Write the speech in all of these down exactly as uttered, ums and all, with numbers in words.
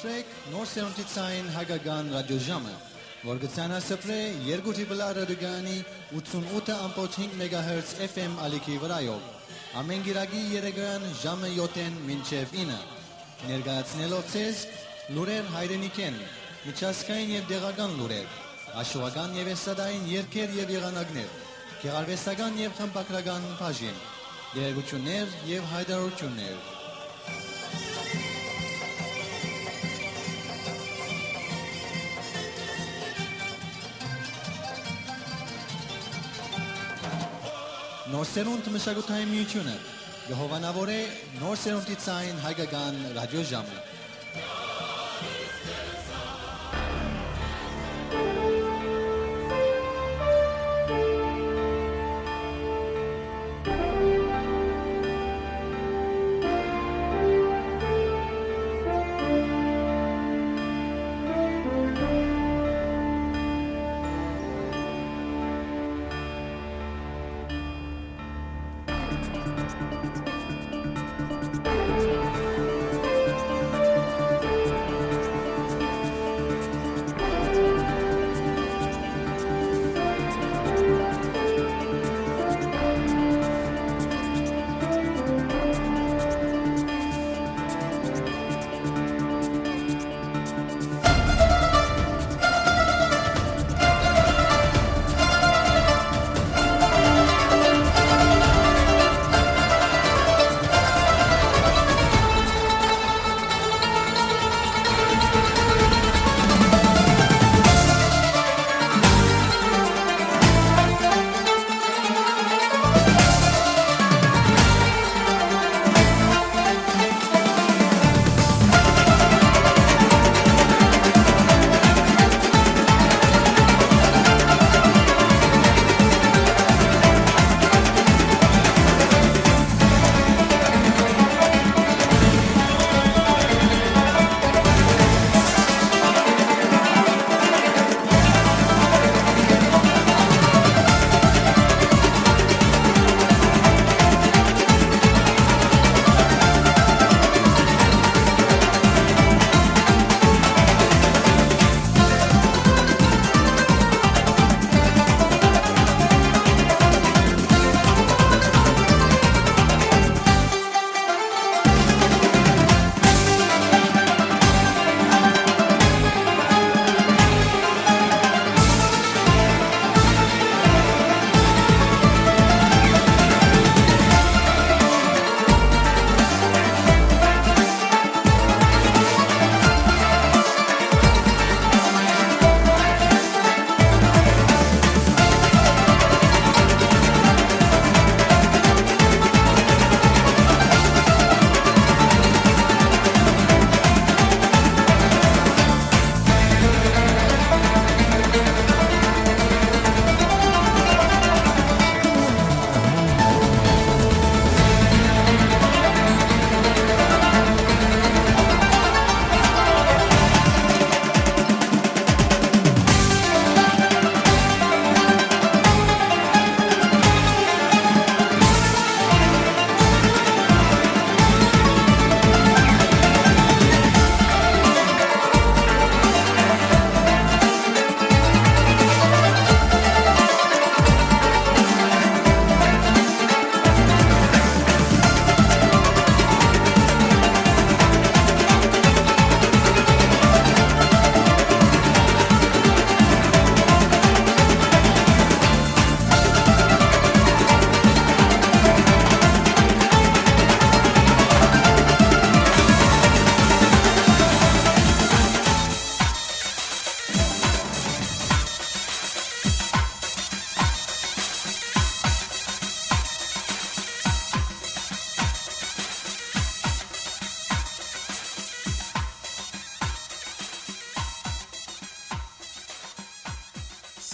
Նոր սերունդի ցային հայկական ռադիոժամը, որ կը ցանասփռէ երկու Triple R ռադիոկայանի ութսունութ ըմբոց հինգ մեգահերց F M ալիքի վրայով, ամէն կիրակի երեկոյեան ժամը յոթ մինչեւ ինը, ներկայացնելով ձեզ լուրեր հայրենիքէն, միջազգային եւ տեղական լուրեր, աշխուական եւ էստրադային երգեր եւ եղանակներ, գեղարուեստական եւ խմբագրական բաժին, տեղեկութիւններ եւ յայտարարութիւններ։ Նոր սերունդ մշակութային միութիւնը կը հովանաւորէ նոր սերունդի ցային հայկական ռադիոժամը։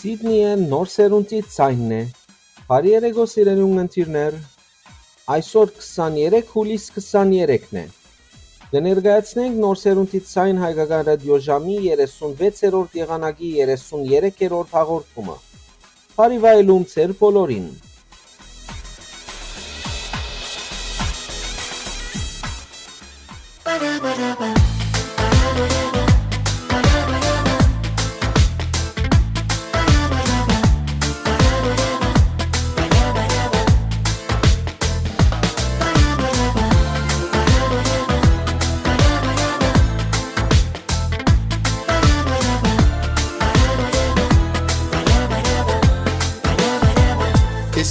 Սիդնիը նոր սերունդի ցայնն է։ Բարի երեկո, սիրելի ունգընտիրներ։ Այսօր քսաներեք հուլիս քսաներեքն է։ Կը ներկայացնենք նոր սերունդի ցայն հայկական ռադիոժամի երեսունվեցերորդ եղանակի երեսուներեք հաղորդումը։ Բարի վայելում ձեր բոլորին։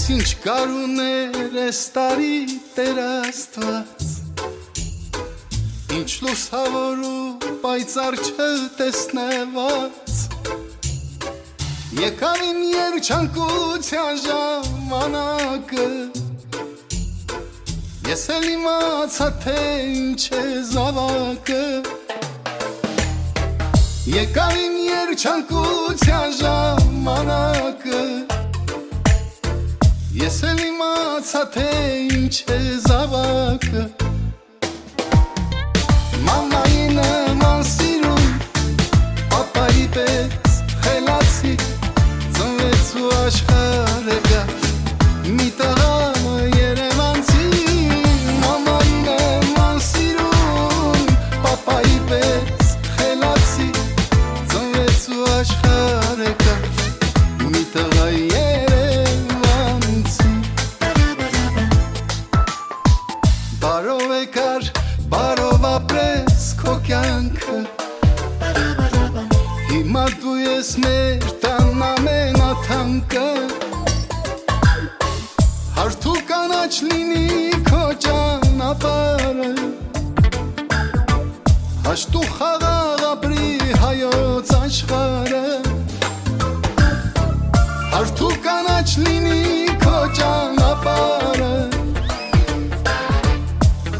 Ինչ գարուն էր այս տարի, Տեր Աստուած, ինչ լուսաւոր ու պայծառ չտեսնուած։ Եկաւ իմ երջանկութեան ժամանակը, ես էլ իմացայ, թէ ինչ է զաւակը։ Եկաւ իմ երջանկութեան ժամանակը, ես էլ իմացայ, թէ ինչ է զաւակը։ Մամայի նման սիրուն, պապայի պէս խելացի, ծնվեց ու աշխարհը գա մի տղայ երևանցի։ Մամայի նման սիրուն, պապայի պէս խելացի, ծնվեց ու աշխարհը գա մի տղայ երևանցի։ Բարով եկար, բարով ապրես քո կեանքը, հիմա դու ես մեր տան ամենաթանկը։ Հարթ ու կանաչ լինի քո ճանապարհը, հաշտ ու խաղաղ ապրի հայոց աշխարհը։ Հարթ ու կանաչ լինի քո ճանապարհը,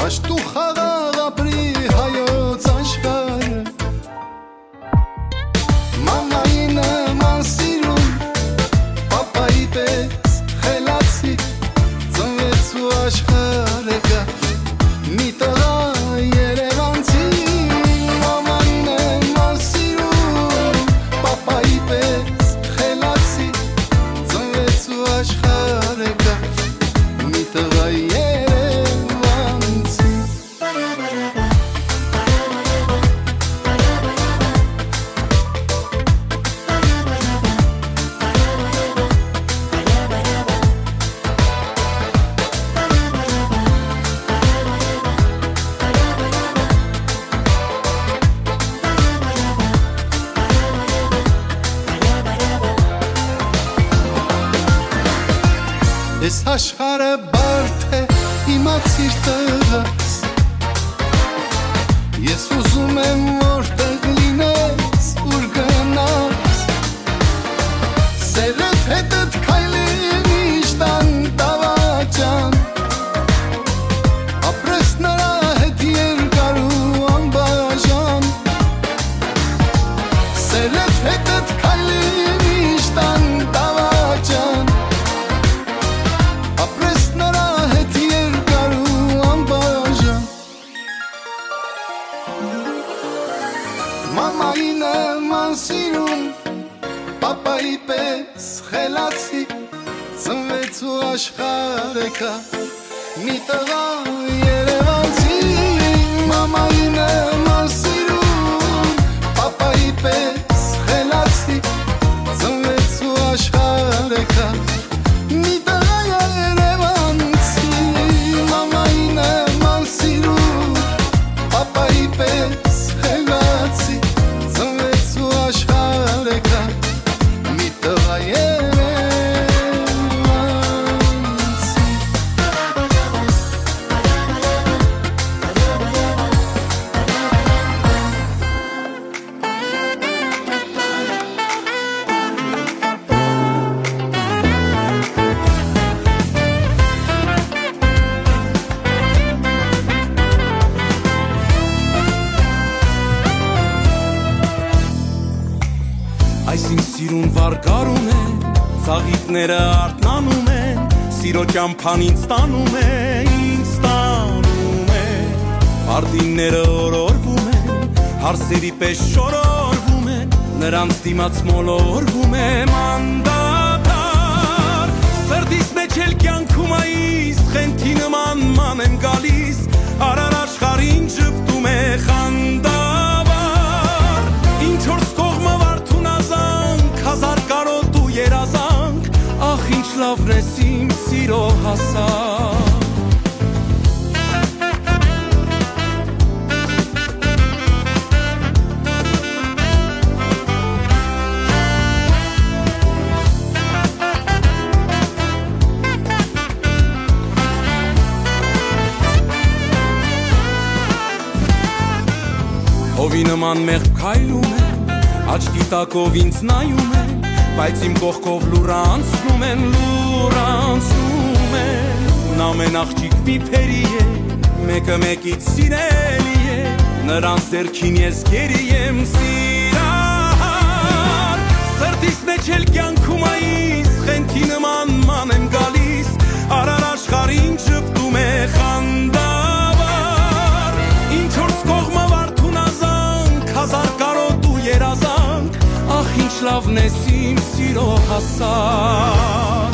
հաշտ ու խաղաղ ապրի հայոց աշխարհը։ Մամայի նման սիրուն, պապայի պէս խելացի, ծնվեց ու աշխարհը գա մի տղայ երևանցի։ Մամայի նման սիրուն, պապայի պէս խելացի, ծնվեց ու աշխարհը գա մի տղայ երևանցի։ Այս աշխարհը բարդ է, իմացիր, տղաս, ես ուզում եմ, որտեղ լինես, ուր գնաս, սերդ հետդ քայլի միշտ անտավաճան, ապրես նրա հետ երկար ու անբաժան, սերդ հետդ քայլի միշտ անտավաճան, ապրես նրա հետ երկար ու անբաժան։ Մամայի նման սիրուն, պապայի պէս խելացի, ծնվեց ու աշխարհը գա մի տղայ երևանցի։ Մամայի նման սիրուն, պապայի պէս խելացի, ծնվեց ու աշխարհը գա մի տղայ երևանցի։ Մամայի նման սիրուն, պապայի պէս խելացի, ծնվեց ու աշխարհը գա մի տղայ երևանցի։ Այսինքն սիրուն վարկարում է, ծաղիկները արթնանում են, սիրո ճամփան ինձ տանում է, ինձ տանում է։ Արտինները օրորվում են, հարսերի պես շորորվում են, նրանց դիմաց մոլորվում եմ անդադար։ Սրտիս մեջ էլ կյանքում այս խենթի նման ման եմ գալիս, արար աշխարհին ժպտում է խանդավառ։ Ինչ որ կողմը վարդուն ազանք, հազար կարոտ ու երազանք, ախ, ինչ լավն ես իմ սիրո հասակ։ Ի նման մեղմ քայլում են, աչքի տակով ինձ նայում են, բայց իմ կողքով լուռ անցնում են, լուռ անցնում են։ Ամեն աղջիկ մի փերի է, մեկը մեկից սիրելի է, նրանց ձեռքին ես գերի եմ սիրահար։ Սրտիս մեջ էլ կյանքում այս խենթի նման ման եմ գալիս, արար աշխարհին ճպտում է խանդավառ։ Ինչ որ կողմը վարդուն ազանք, հազար կարոտ ու երազանք, ախ, ինչ լավն ես իմ սիրո հասակ։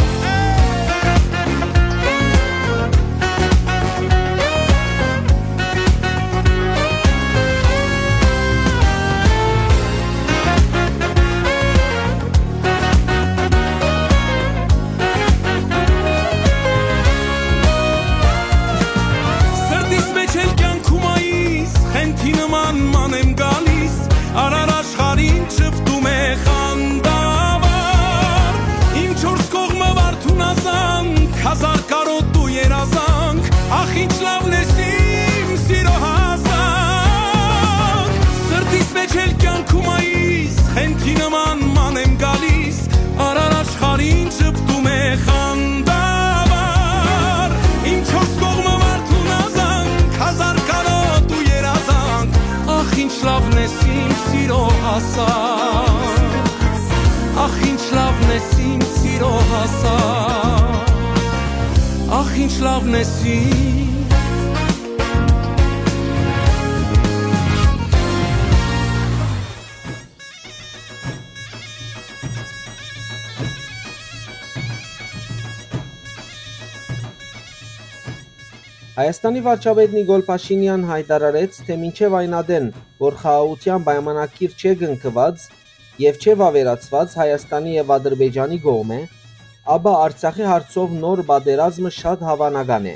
Սրտիս մեջ էլ կյանքում այս խենթի նման ման եմ գալիս, արար աշխարհին ճպտում է խանդավառ։ Իմ չորս կողմը վարդուն ազանք, հազար կարոտ ու երազանք, ախ, ինչ լավն ես իմ սիրո հասակ։ Սրտիս մեջ էլ կյանքում այս խենթի նման ման եմ գալիս, արար աշխարհին ճպտում է խանդավառ։ Իմ չորս կողմը վարդուն ազանք, հազար կարոտ ու երազանք, ախ, ինչ լավն ես իմ սիրո հասակ, ախ, ինչ լավն ես իմ սիրո հասակ, ախ, ինչ լավն ես իմ։ Հայաստանի վարչապետ Նիկոլ Փաշինեան յայտարարեց, թէ մինչեւ այն ատեն, որ խաղաղութեան պայմանագիր չէ կնքուած եւ չէ վաւերացուած Հայաստանի եւ Ադրբեջանի կողմէ, ապա Արցախի հարցով նոր պատերազմը շատ հաւանական է։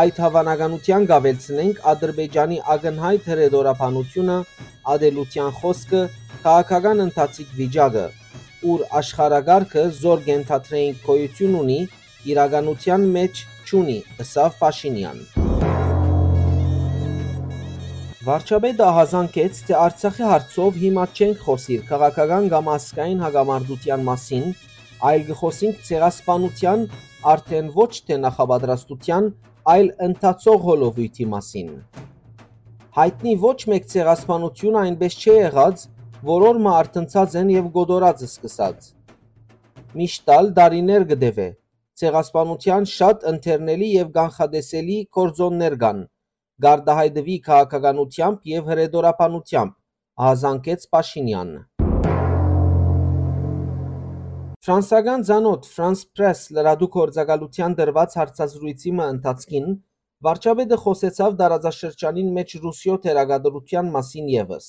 Այդ հաւանականութեան կ'աւելցնենք Ադրբեջանի ակնյայտ հրետորաբանութիւնը, ատելութեան խօսքը, քաղաքական ընթացիկ վիճակը, ուր աշխարհակարգը, զոր կ'ենթադրէինք գոյութիւն ունի, իրականութեան մէջ չունի, ըսաւ Փաշինեան։ Վարչապետը ահազանգեց, թէ Արցախի հարցով հիմա չենք խօսիր քաղաքական կամ ազգային հակամարտութեան մասին, այլ կը խօսինք ցեղասպանութեան, արդեն ոչ թէ նախապատրաստութեան, այլ ընթացող հոլովոյթի մասին։ Յայտնի ոչ մէկ ցեղասպանութիւն այնպէս չէ եղած, որ օր մը արթնցած են եւ կոտորած սկսած։ Միշտ ալ տարիներ կը տեւէ, ցեղասպանութեան շատ ընթերնելի եւ կանխատեսելի գործօններ կան, կ'արտայայտուի քաղաքականութեամբ եւ հրետորաբանութեամբ, ահազանգեց Փաշինեան։ Ֆրանսական ծանօթ France Presse լրատու գործակալութեան տրուած հարցազրոյցի մը ընթացքին վարչապետը խօսեցաւ տարածաշրջանին մէջ Ռուսիոյ թերակատարութեան մասին եւս։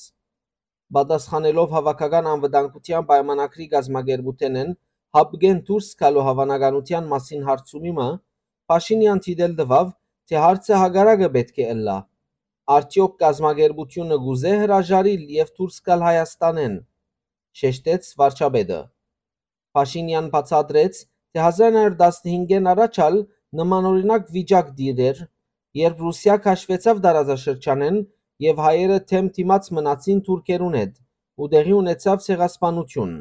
Պատասխանելով Հաւաքական անվտանգութեան պայմանագրի կազմակերպութենէն հապկէն դուրս գալու հաւանականութեան մասին հարցումի մը, Փաշինեան դիտել տուաւ, թէ հարցը հակառակը պէտք է ըլլայ. արդեօք կազմակերպութիւնը կ'ուզէ հրաժարիլ եւ դուրս գալ Հայաստանէն, շեշտեց վարչապետը։ Փաշինեան բացատրեց, թէ հազար նոյ հարիւր տասնհինգէն առաջ ալ նմանօրինակ վիճակ տիրէր, երբ Ռուսիա քաշուեցաւ տարածաշրջանէն եւ հայերը դէմ դիմաց մնացին թուրքերուն հետ ու տեղի ունեցաւ ցեղասպանութիւն։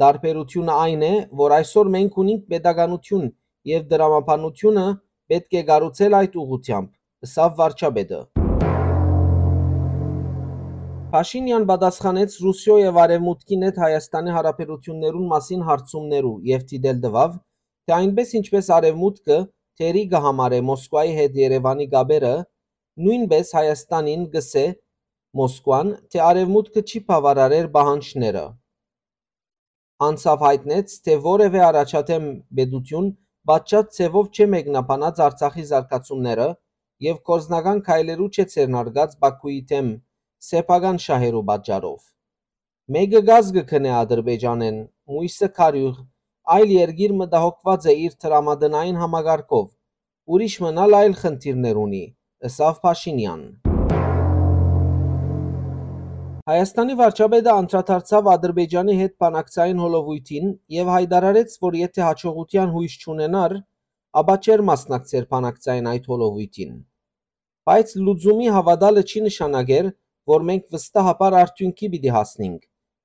Տարբերութիւնը այն է, որ այսօր մենք ունինք պետականութիւն եւ տրամաբանութիւնը պէտք է կառուցել այդ ուղղութեամբ, ըսաւ վարչապետը։ Փաշինեան պատասխանեց Ռուսիոյ եւ Արեւմուտքին հետ Հայաստանի յարաբերութիւններուն մասին հարցումներու եւ դիտել տուաւ, թէ այնպէս ինչպէս Արեւմուտքը թերի կը համարէ Մոսկուայի հետ Երեւանի կապերը, նոյնպէս Հայաստանին կ'ըսէ Մոսկուան, թէ Արեւմուտքը չի բաւարարեր պահանջները։ Անցաւ յայտնեց, թէ որեւէ առաջադէմ պետութիւն պատշաճ ձեւով չէ մեկնաբանած Արցախի զարգացումները եւ գործնական քայլերու չէ ձեռնարկած Բաքուի դէմ սեփական շահերու պատճառով։ Մէկը կազ կը գնէ Ադրբեջանէն, մոյսը քարիւղ, այլ երկիր մտահոգուած է իր տրամատնային համակարգով, ուրիշ մըն ալ այլ խնդիրներ ունի, ըսաւ Փաշինեան։ Հայաստանի վարչապետը անդրադարձաւ Ադրբեջանի հետ բանակցային հոլովոյթին եւ յայտարարեց, որ եթէ յաջողութեան յոյս չունենար, ապա չէր մասնակցեր բանակցային այդ հոլովոյթին։ Բայց լուծումի հաւատալը չի նշանակեր, որ մենք վստահաբար արդիւնքի պիտի հասնինք,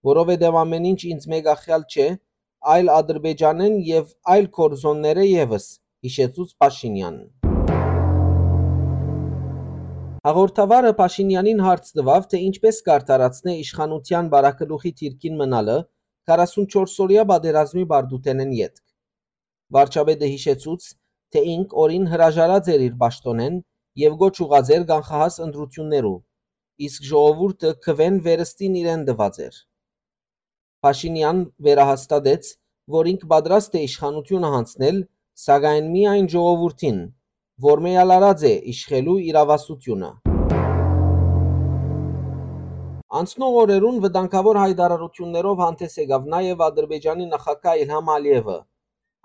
որովհետեւ ամէն ինչ ինձ մեկախեալ չէ, այլ Ադրբեջանէն եւ այլ կորզոններէ եւս, յիշեցուց Փաշինեան։ Հաղորդավարը Փաշինեանին հարց տուաւ, թէ ինչպէս կ'արդարացնէ իշխանութեան վարագլուխի դիրքին մնալը քառասունչորս օրեայ պատերազմի պարտութենէն ետք։ Վարչապետը յիշեցուց, թէ ինք օրին հրաժարած էր իր պաշտօնէն եւ կոչ ուղղած էր կանխահաս ընտրութիւններու, իսկ ժողովուրդը քուէն վերստին իրեն տուած էր։ Փաշինեան վերահաստատեց, որ ինք պատրաստ է իշխանութիւնը յանձնել, սակայն միայն ժողովուրդին, որ մէյալարած է իշխելու իրաւասութիւնը։ Անցնող օրերուն վտանգաւոր յայտարարութիւններով հանդէս եկաւ նաեւ Ադրբեջանի նախագահ Իլհամ Ալիեւը։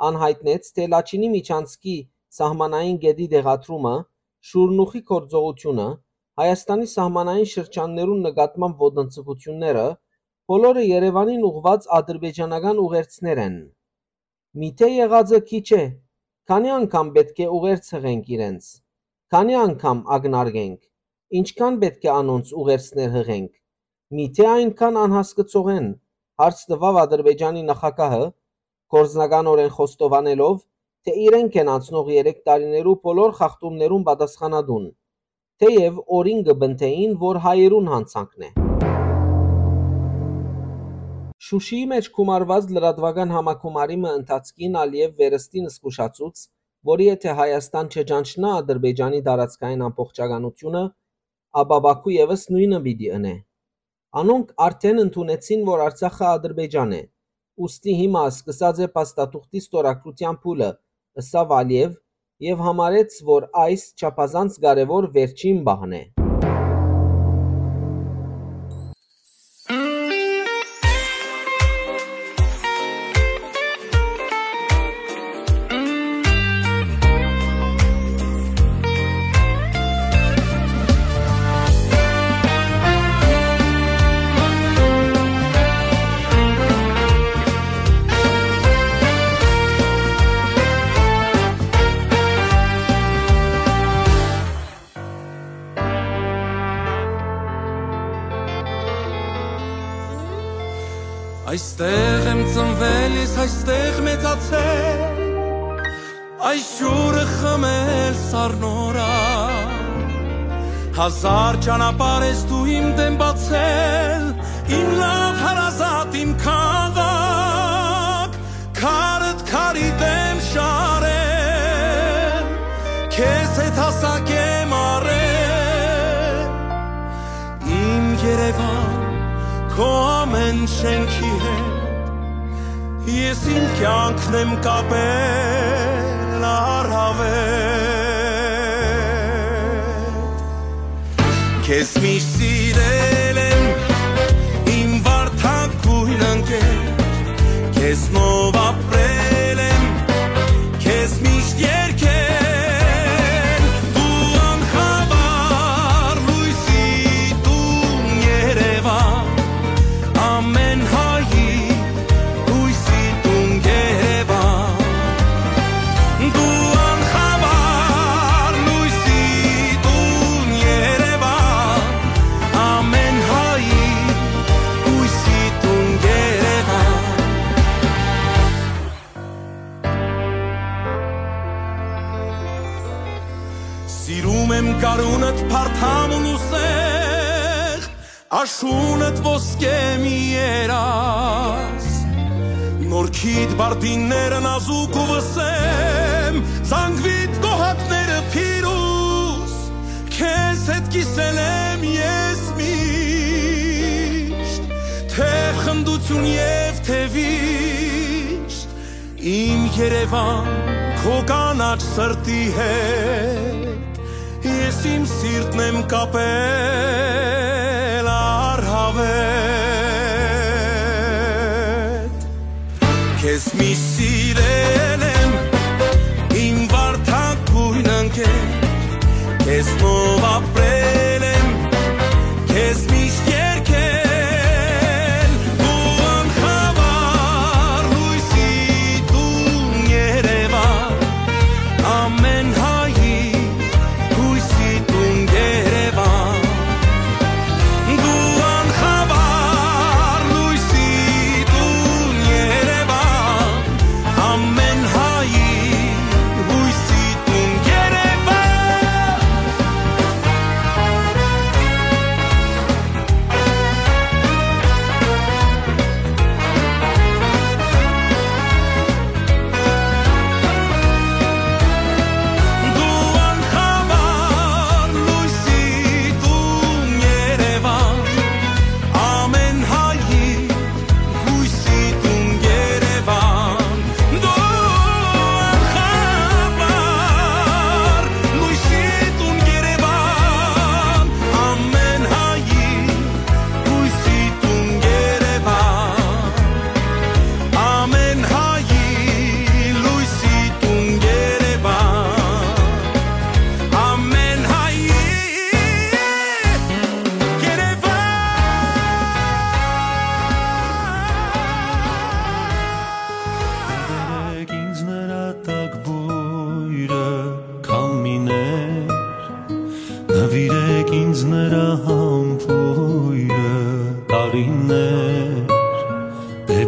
Ան յայտնեց, թէ Լաչինի միջանցքի սահմանային կետի տեղադրումը, Շուրնուխի գործողութիւնը, Հայաստանի սահմանային շրջաններուն նկատմամբ ոտնձգութիւնները, բոլորը Երեւանին ուղղուած ադրբեջանական ուղերձներ են։ Միթէ եղածը քիչ է, քանի՞ անգամ պէտք է ուղերձ յղենք իրենց, քանի՞ անգամ ակնարկենք, ինչքան պէտք է անոնց ուղերձներ յղենք, միթէ այնքան անհասկցող են, հարց տուաւ Ադրբեջանի նախագահը, գործնականօրէն խոստովանելով, թէ իրենք են անցնող երեք տարիներու բոլոր խախտումներուն պատասխանատուն, թէեւ օրին կը պնդէին, որ հայերուն յանցանքն է։ Շուշիի մէջ գումարուած լրատուական համագումարի մը ընթացքին Ալիեւ վերստին զգուշացուց, որ եթէ Հայաստան չճանչնայ Ադրբեջանի տարածքային ամբողջականութիւնը, ապա Պաքու եւս նոյնը պիտի ընէ։ Անոնք արդէն ընդունեցին, որ Արցախը Ադրբեջան է, ուստի հիմա սկսած է փաստաթուղթի ստորագրութեան փուլը, ըսաւ Ալիեւ եւ համարեց, որ այս չափազանց կարեւոր վերջին պահն է։ Այստեղ եմ ծնվել ես, այստեղ մեծացել, այս ջուրը խմել սառնորայ։ Հազար ճանապարհ ես դու իմ դէմ բացել, իմ լաւ հարազատ, իմ քաղաք, քարդ քարի դէմ շարել, քեզ հետ հասակ եմ առել, իմ Երեւան, քո ամէն շէնքի հետ, ես իմ կեանքն եմ կապել առաւել։ Քեզ միշտ սիրել եմ, իմ վարդագոյն ընկեր, քեզնով ապրել եմ, քեզ միշտ երգել, դու անխավար լոյսի տուն Երեւան, ամէն հայի հոյսի տուն Երեւան, դու անխավար լոյսի տուն Երեւան, ամէն հայի հոյսի տուն Երեւան։ Սիրում եմ գարունդ, փարթամ ու նուսեղ, աշունդ ոսկե մի երազ, նորքիդ բարդինները նազուկ ու վսեմ, զանգվիդ գոհակները փիրուզ, քեզ հետ կիսել եմ ես միշտ, թէ խնդություն եւ թէ վիշտ, իմ Երեւան, քո կանաչ սրտի հետ, ես իմ սիրտն եմ կապել առհավետ։ Քեզ միշտ սիրել եմ, իմ վարդագոյն ընկեր, քեզնով ապրել եմ, քեզ միշտ երգել, դու անխավար լոյսի տուն Երեւան, ամէն հայի հոյսի տուն Երեւան,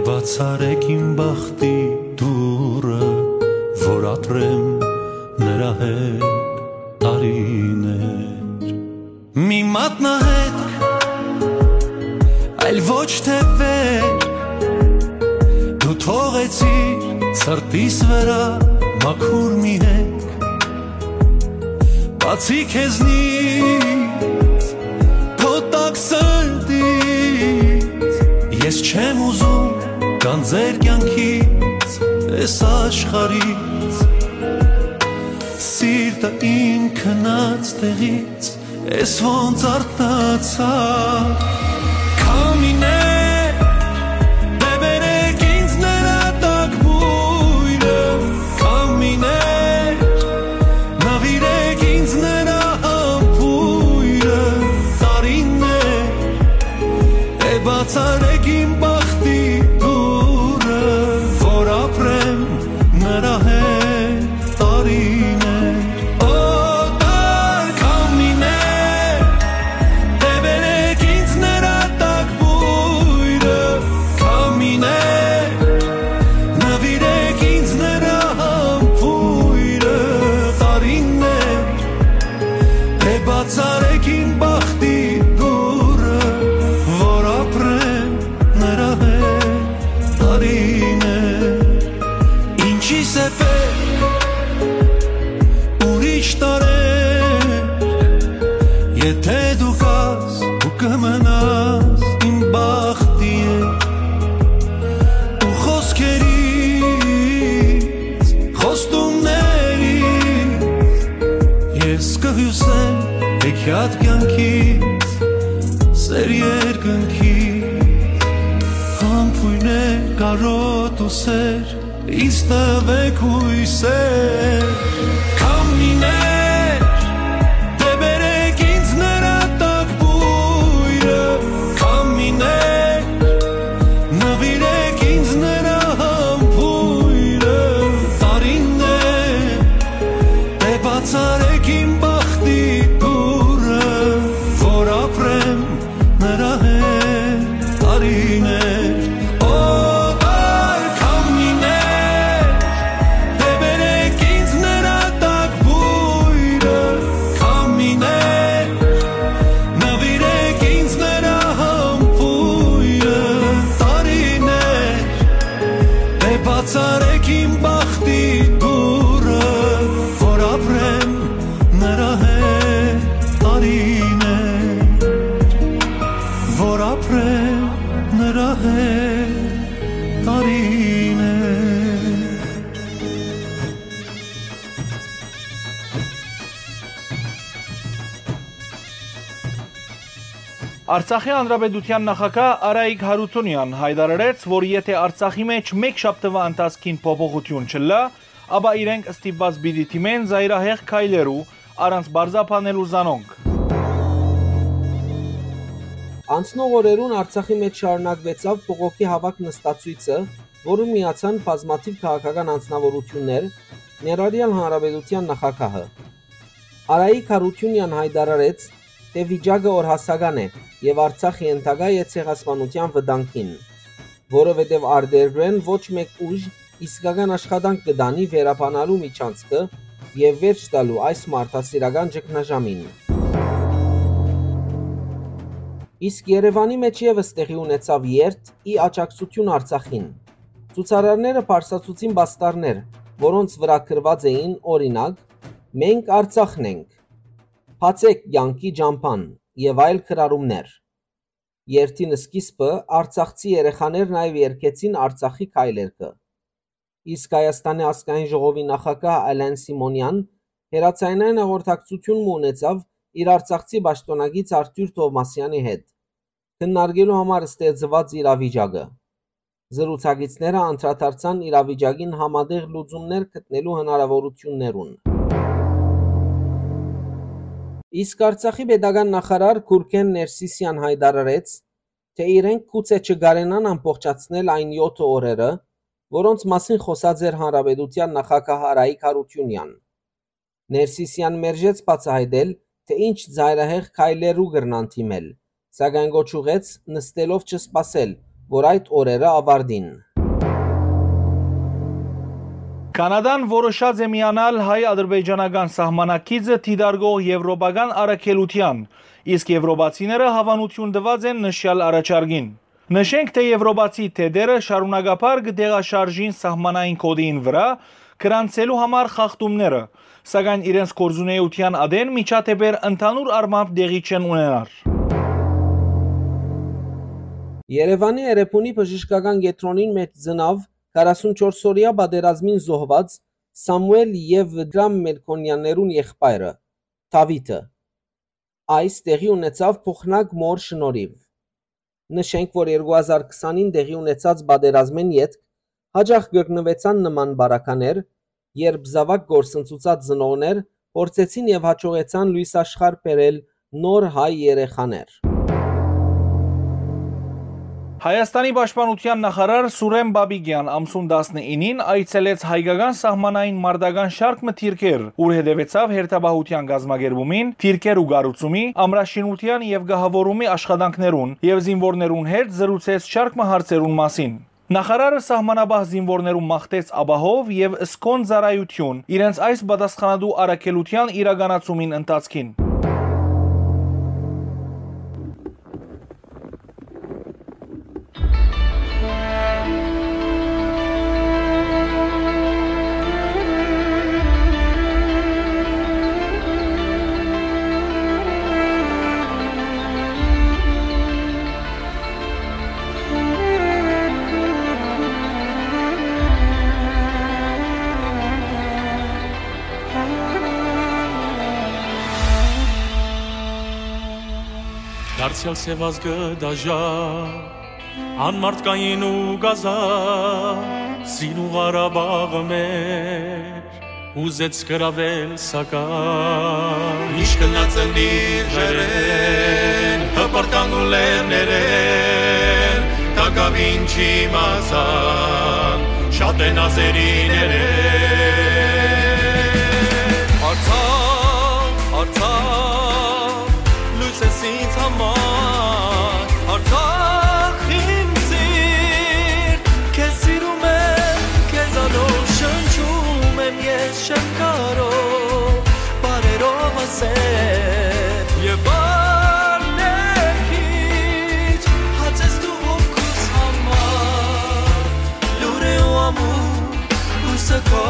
Բացարեք իմ բախտի դուռը, որ ապրեմ նրա հետ տարիներ։ Մի մատնահետք, այլ ոչ թե վեր, դու թողեցիր սրտիս վրա մաքուր մի հետք։ Բացի քեզնից, քո տաք սրտից, ես չեմ ուզում գանձեր կյանքից, այս աշխարհից։ Սիրտը իմ քնած տեղից, ես ոնց արթնացա։ Քամիներ, դեբերեք ինձ նրա տակ բոյրը, քամիներ, նվիրեք ինձ նրա համբույրը, տարիներ, է բացարեք իմ բախտի դուռը, որ ապրեմ նրա հետ տարիներ։ Օտար քամիներ, դեբերեք ինձ նրա տակ բոյրը, քամիներ, նվիրեք ինձ նրա համբույրը, տարիներ, է բացարեք իմ բախտի դուռը, որ ապրեմ նրա հետ տարիներ։ Ինչի՞ս է պետք ուրիշ տարեր, եթե դու կաս ու կմնաս իմ բախտի հետ։ Ու խոսքերից, խոստումներից, ես կհիուսեմ հեքիաթ կյանքից, սեր երկնքից, համբույրներ կարոտ ու սեր, ինձ տվեք յոյսեր, քամիներ, դեբերեք ինձ նրա տակ բոյրը, քամիներ, նվիրեք ինձ նրա համբոյրը, տարիներ, դե բացարեք իմ բախտի դուռը, որ ապրեմ նրա հետ տարիներ, օտար քամիներ, դեբերեք ինձ նրա տակ բոյրը, քամիներ, նվիրեք ինձ նրա համբոյրը, տարիներ, դե բացարեք իմ բախտի դուռը, որ ապրեմ նրա հետ տարիներ, որ ապրեմ նրա հետ տարիներ։ Արցախի Հանրապետութեան նախագահ Արայիկ Հարութունեան յայտարարեց, որ եթէ Արցախի մէջ մէկ շաբթուայ ընթացքին փոփոխութիւն չըլլայ, ապա իրենք ստիպուած պիտի դիմեն զայրահեղ քայլերու, առանց պարզաբանելու զանոնք։ Անցնող օրերուն Արցախի մէջ շարունակուեցաւ բողոքի հաւաք-նստացոյցը, որուն միացան բազմաթիւ քաղաքական անձնաւորութիւններ, ներառեալ Հանրապետութեան նախագահը։ Արայիկ Հարութունեան յայտարարեց, թէ վիճակը օրհասական է եւ Արցախ ենթակայ է ցեղասպանութեան վտանգին, որովհետեւ արտերկրէն ոչ մէկ ուժ իսկական աշխատանք կը տանի վերաբանալու միջանցքը եւ վերջ տալու այս մարդասիրական ճգնաժամին։ Իսկ Երեւանի մէջ եւս տեղի ունեցաւ երթ ի աջակցութիւն Արցախին։ Ցուցարարները բարձրացուցին պաստառներ, որոնց վրայ գրուած էին, օրինակ, «Մենք Արցախն ենք», «Բացեք կեանքի ճամբան» եւ այլ գրառումներ։ Երթին սկիզբը արցախցի երեխաներ նաեւ երգեցին Արցախի քայլերգը։ Իսկ Հայաստանի ազգային ժողովի նախագահ Ալեն Սիմոնեան հեռաձայնային հաղորդակցութիւն մը ունեցաւ իր արցախցի պաշտօնակից Արթուր Թովմասեանի հետ, քննարկելու համար ստեղծուած իրավիճակը։ Զրուցակիցները անդրադարձան իրավիճակին համատեղ լուծումներ գտնելու հնարաւորութիւններուն։ Իսկ Արցախի պետական նախարար Գուրգեն Ներսիսեան յայտարարեց, թէ իրենք գուցե չկարենան ամբողջացնել այն եօթը օրերը, որոնց մասին խօսած էր Հանրապետութեան նախագահ Արայիկ Հարութիւնեան։ Ներսիսեան մերժեց բացայայտել, թէ ինչ ծայրահեղ քայլերու կրնան դիմել, սակայն կոչ ուղղեց նստելով չսպասել, որ այդ օրերը աւարտին։ Կանադան որոշած է միանալ հայ-ադրբեջանական սահմանակիցը դիտարկող եվրոպական առաքելութեան, իսկ եվրոպացիները հաւանութիւն տուած են նշեալ առաջարկին։ Նշենք, թէ եվրոպացի դետերը շարունակաբար կը տեղաշարժին սահմանային գօտիին վրայ գրանցելու համար խախտումները, սակայն իրենց գործունեութեան ատեն միջադէպեր ընդհանուր առմամբ տեղի չեն ունենար։ Երեւանի Էրեբունի բժշկական կեդրոնին մէջ ծնաւ քառասունչորս օրեայ պատերազմին զոհուած Սամուէլ եւ Դրամ Մելքոնյաններուն եղբայրը՝ Դաւիթը։ Այս տեղի ունեցաւ Փոխնակ մօր շնորհիւ։ Նշենք, որ երկու հազար քսանին տեղի ունեցած պատերազմէն ետք յաճախ կրկնուեցան նման պարագաներ, երբ զաւակ կորսնցուցած ծնողներ փորձեցին եւ յաջողեցան լոյս աշխարհ բերել նոր հայ երեխաներ։ Հայաստանի պաշտպանութեան նախարար Սուրեն Պապիկեան ամսուն տասնինին այցելեց հայկական սահմանային մարտական շարք մը դիրքեր, ուր հետեւեցաւ հերթապահութեան կազմակերպումին, դիրքեր ու կառուցումի, ամրաշինութեան եւ կահաւորումի աշխատանքներուն եւ զինուորներուն հետ զրուցեց շարք մը հարցերուն մասին։ Նախարարը սահմանապահ զինուորներուն մաղթեց ապահով եւ սքոն ծառայութիւն իրենց այս պատասխանատու առաքելութեան իրականացումին ընթացքին։ Դարձեալ սեւազգը դաժա, անմարդկային ու կազա, սին ու Ղարաբաղը մեր, ուզեց գրաւել, սակայն։ Ինչ կնած ըլլիր ջերեն, հպրտան ու լեռներեն, տակաւին չիմացան, շատ են ազերիներեն։ Արցախ, Արցախ, լոյս ես ինձ համար, Արցախ իմ սիրտ, քեզ սիրում եմ, քեզանով շնչում եմ, ես չեմ կարող բառերով ասել, եւ բառներ քիչ, հաց ես դու հոգուս համար, լուր է ու ամուր, լույսը քո։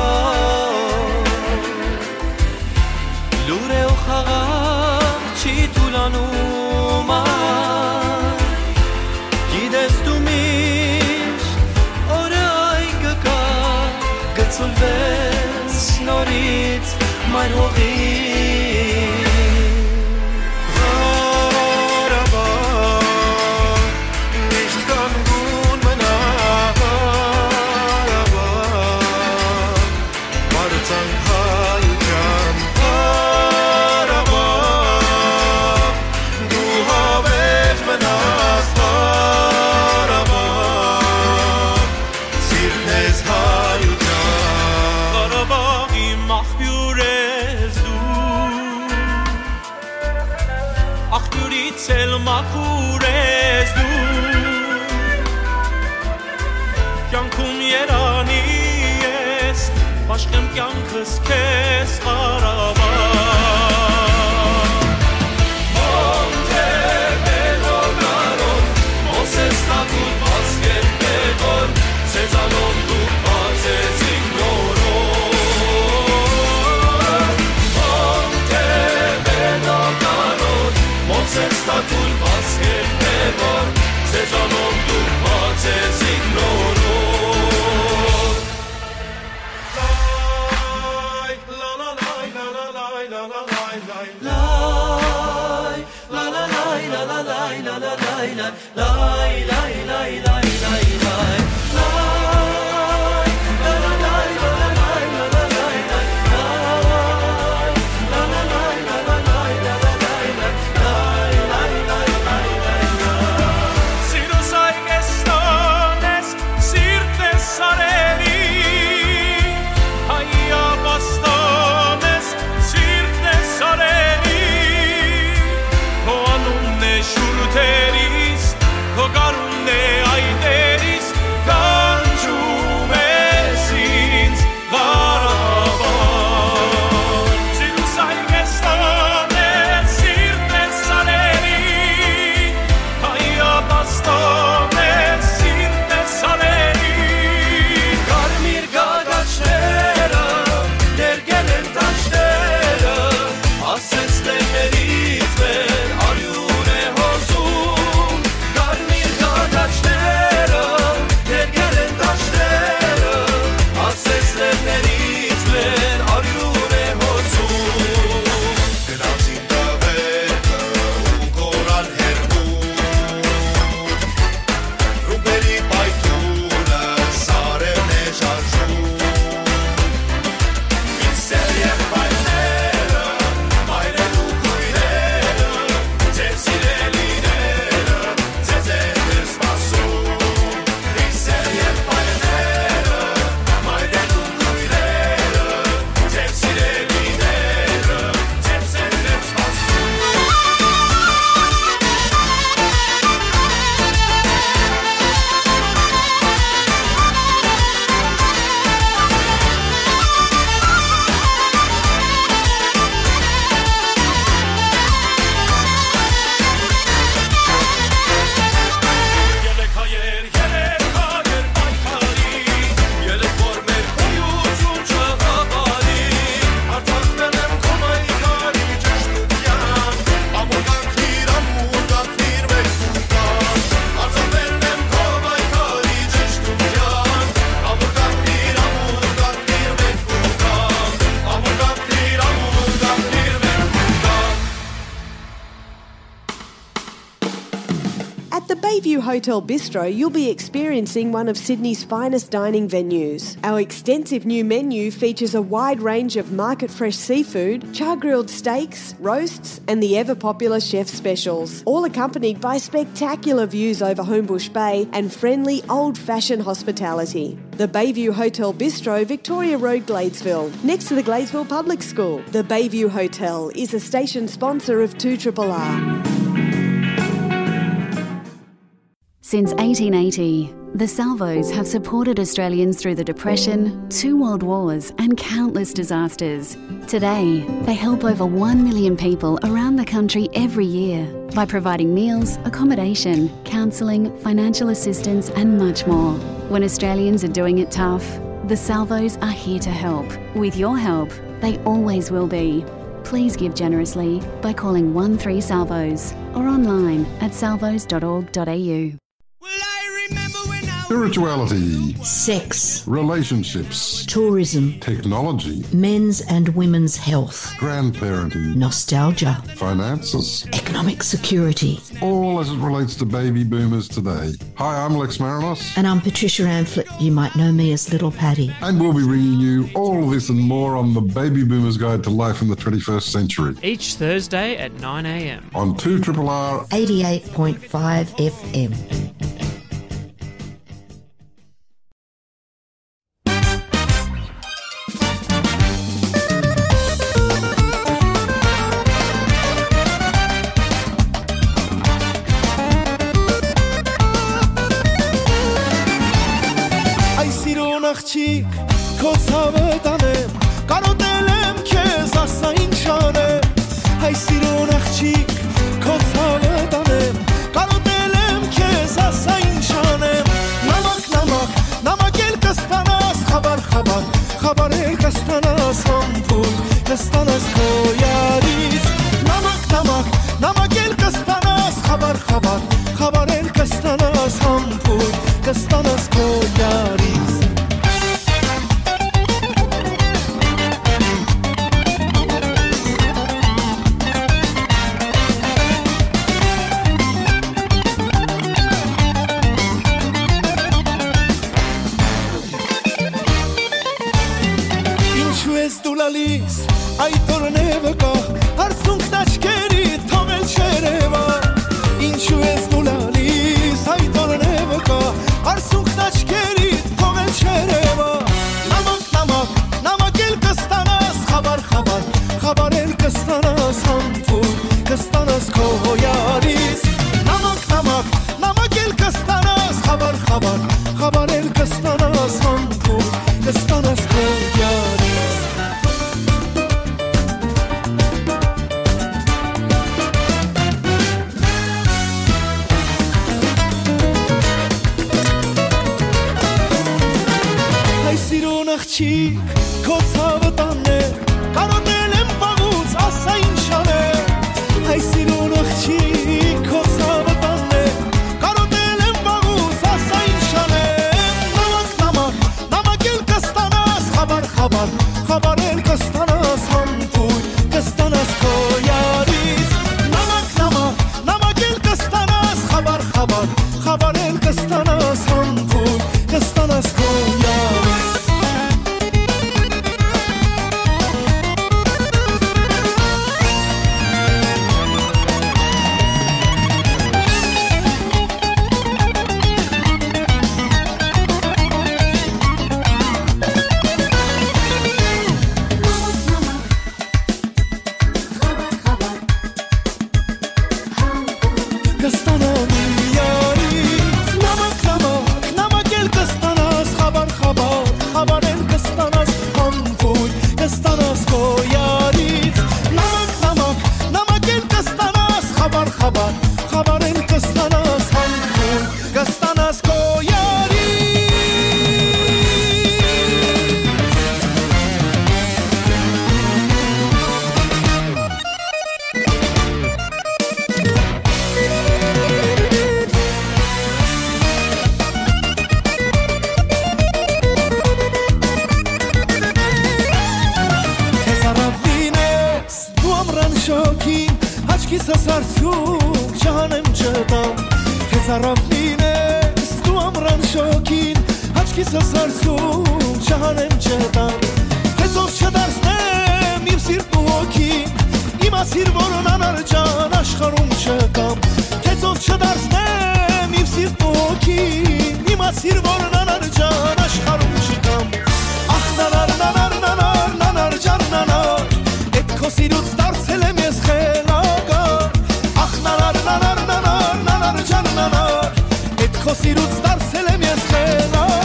Լուր է ու խաղաղ չի թուլանում այ, գիտես դու միշտ օրը այն կգայ, կցուլվես նորից մայր հողի։ Ղարաբաղ, միշտ կանգուն մնա Ղարաբաղ, Պարծանք հայութեան Ղարաբաղ, դու հավերժ մնաս Ղարաբաղ, սիրտն ես հայութեան։ Ղարաբաղի մախբիւր ես դու, աղբիւրից էլ մաքուր ես դու, կյանքում երանի ես, բաշխեմ կյանքս քեզ, Ղարաբաղ։ Մոնտեվեդո կարոտ, Մովսես Թագուտ, Վազգեն Պեգոր, Սեզանով դուք բացեցիք նորոն։ Մոնտեվեդո կարոտ, Մովսես Թագուտ, Վազգեն Պեգոր, Սեզանով դուք բացեցիք նորոն։ Սիրո սայ կեստան Hotel Bistro, you'll be experiencing one of Sydney's finest dining venues. Our extensive new menu features a wide range of market fresh seafood, char grilled steaks, roasts, and the ever popular chef specials, all accompanied by spectacular views over Homebush Bay and friendly old fashioned hospitality. The Bayview Hotel Bistro, Victoria Road, Gladesville, next to the Gladesville Public School. The Bayview Hotel is a station sponsor of two triple R. Since eighteen eighty, the Salvos have supported Australians through the Depression, two world wars, and countless disasters. Today, they help over one million people around the country every year by providing meals, accommodation, counselling, financial assistance, and much more. When Australians are doing it tough, the Salvos are here to help. With your help, they always will be. Please give generously by calling one three Salvos or online at salvos dot org dot a u. Spirituality, sex, relationships, tourism, technology, men's and women's health, grandparenting, nostalgia, finances, economic security. All as it relates to baby boomers today. Hi, I'm Lex Marinos. And I'm Patricia Amphlett. You might know me as Little Patty. And we'll be bringing you all this and more on the Baby Boomers Guide to Life in the twenty-first Century. Each Thursday at nine a m. On two triple R eighty-eight point five F M. Այ սիրուն աղջիկ, քո ցաւը տանեմ, կարոտել եմ քեզ, ասա ինչ անեմ։ Հայ սիրուն աղջիկ, քո ցաւը տանեմ, կարոտել եմ քեզ, ասա ինչ անեմ։ Նամակ, նամակ, նամակ էլ կստանաս, խաբար, խաբար, խաբար էլ կստանաս, համբույր կստանաս քո յարից։ Նամակ, նամակ, նամակ էլ կստանաս, խաբար, խաբար, խաբար էլ կստանաս, համբույր կստանաս քո յարից։ Ինչու ես դու լալիս, այդ օրն է վկա, արցունքն աչքերի թողել չերևա։ Ինչու ես դու լալիս, այդ օրն է վկա, արցունքն աչքերի թողել չերևա։ Նամակ, նամակ, նամակ էլ կստանաս, խաբար, խաբար, խաբար էլ կստանաս, համբույր կստանաս քո յարից։ Նամակ, նամակ, նամակ էլ կստանաս, խաբար, խաբար, խաբար էլ կստանաս, համբույր կստանաս քո յարից։ Հայ սիրուն աղջիկ, քո ցաւը տանեմ, կարոտել եմ վաղուց, ասա ինչ անեմ։ Հայ սիրուն աղջիկ, քո ցաւը տանեմ, կարոտել եմ վաղուց, ասա ինչ անեմ։ Նամակ, նամակ, նամակ էլ կստանաս, խաբար, խաբար, խաբար էլ կստանաս, համբույր կստանաս քո յարից։ Նամակ, նամակ, նամակ էլ կստանաս, խաբար, խաբար, խաբար էլ կստանաս, համբույր կստանաս քո յարից։ Կստանամ յարից նամակ, նամակ, նամակ էլ կստանաս, խաբար, խաբար, խաբար էլ կստանաս, համբույր կստանաս քո յարից։ Նամակ, նամակ, նամակ էլ կստանաս, խաբար, խաբար, խաբար էլ կստանաս, համբույր կստանաս քո յարից։ Քեզ առաւլին ես դու ամրան շոգին, աչքիս ասարցու չանեմ չտամ։ Քեզ առաւլին Քիզս հարցում չհանեմ չտամ, թէ ծով չդարձնեմ իմ սիրտն ու հոգին, իմացիր, որ անանար ջան աշխարհում չկամ, թէ ծով չդարձնեմ իմ սիրտն ու հոգին, իմացիր, որ անանար ջան աշխարհում չկամ։ Ախ, նանար, նանար, նանար, նանար ջան, նանար, էդ քո սիրուց դարձել եմ ես խելագար։ Ախ, նանար, նանար, նանար, նանար ջան, նանար, էդ քո սիրուց դարձել եմ ես խելագար։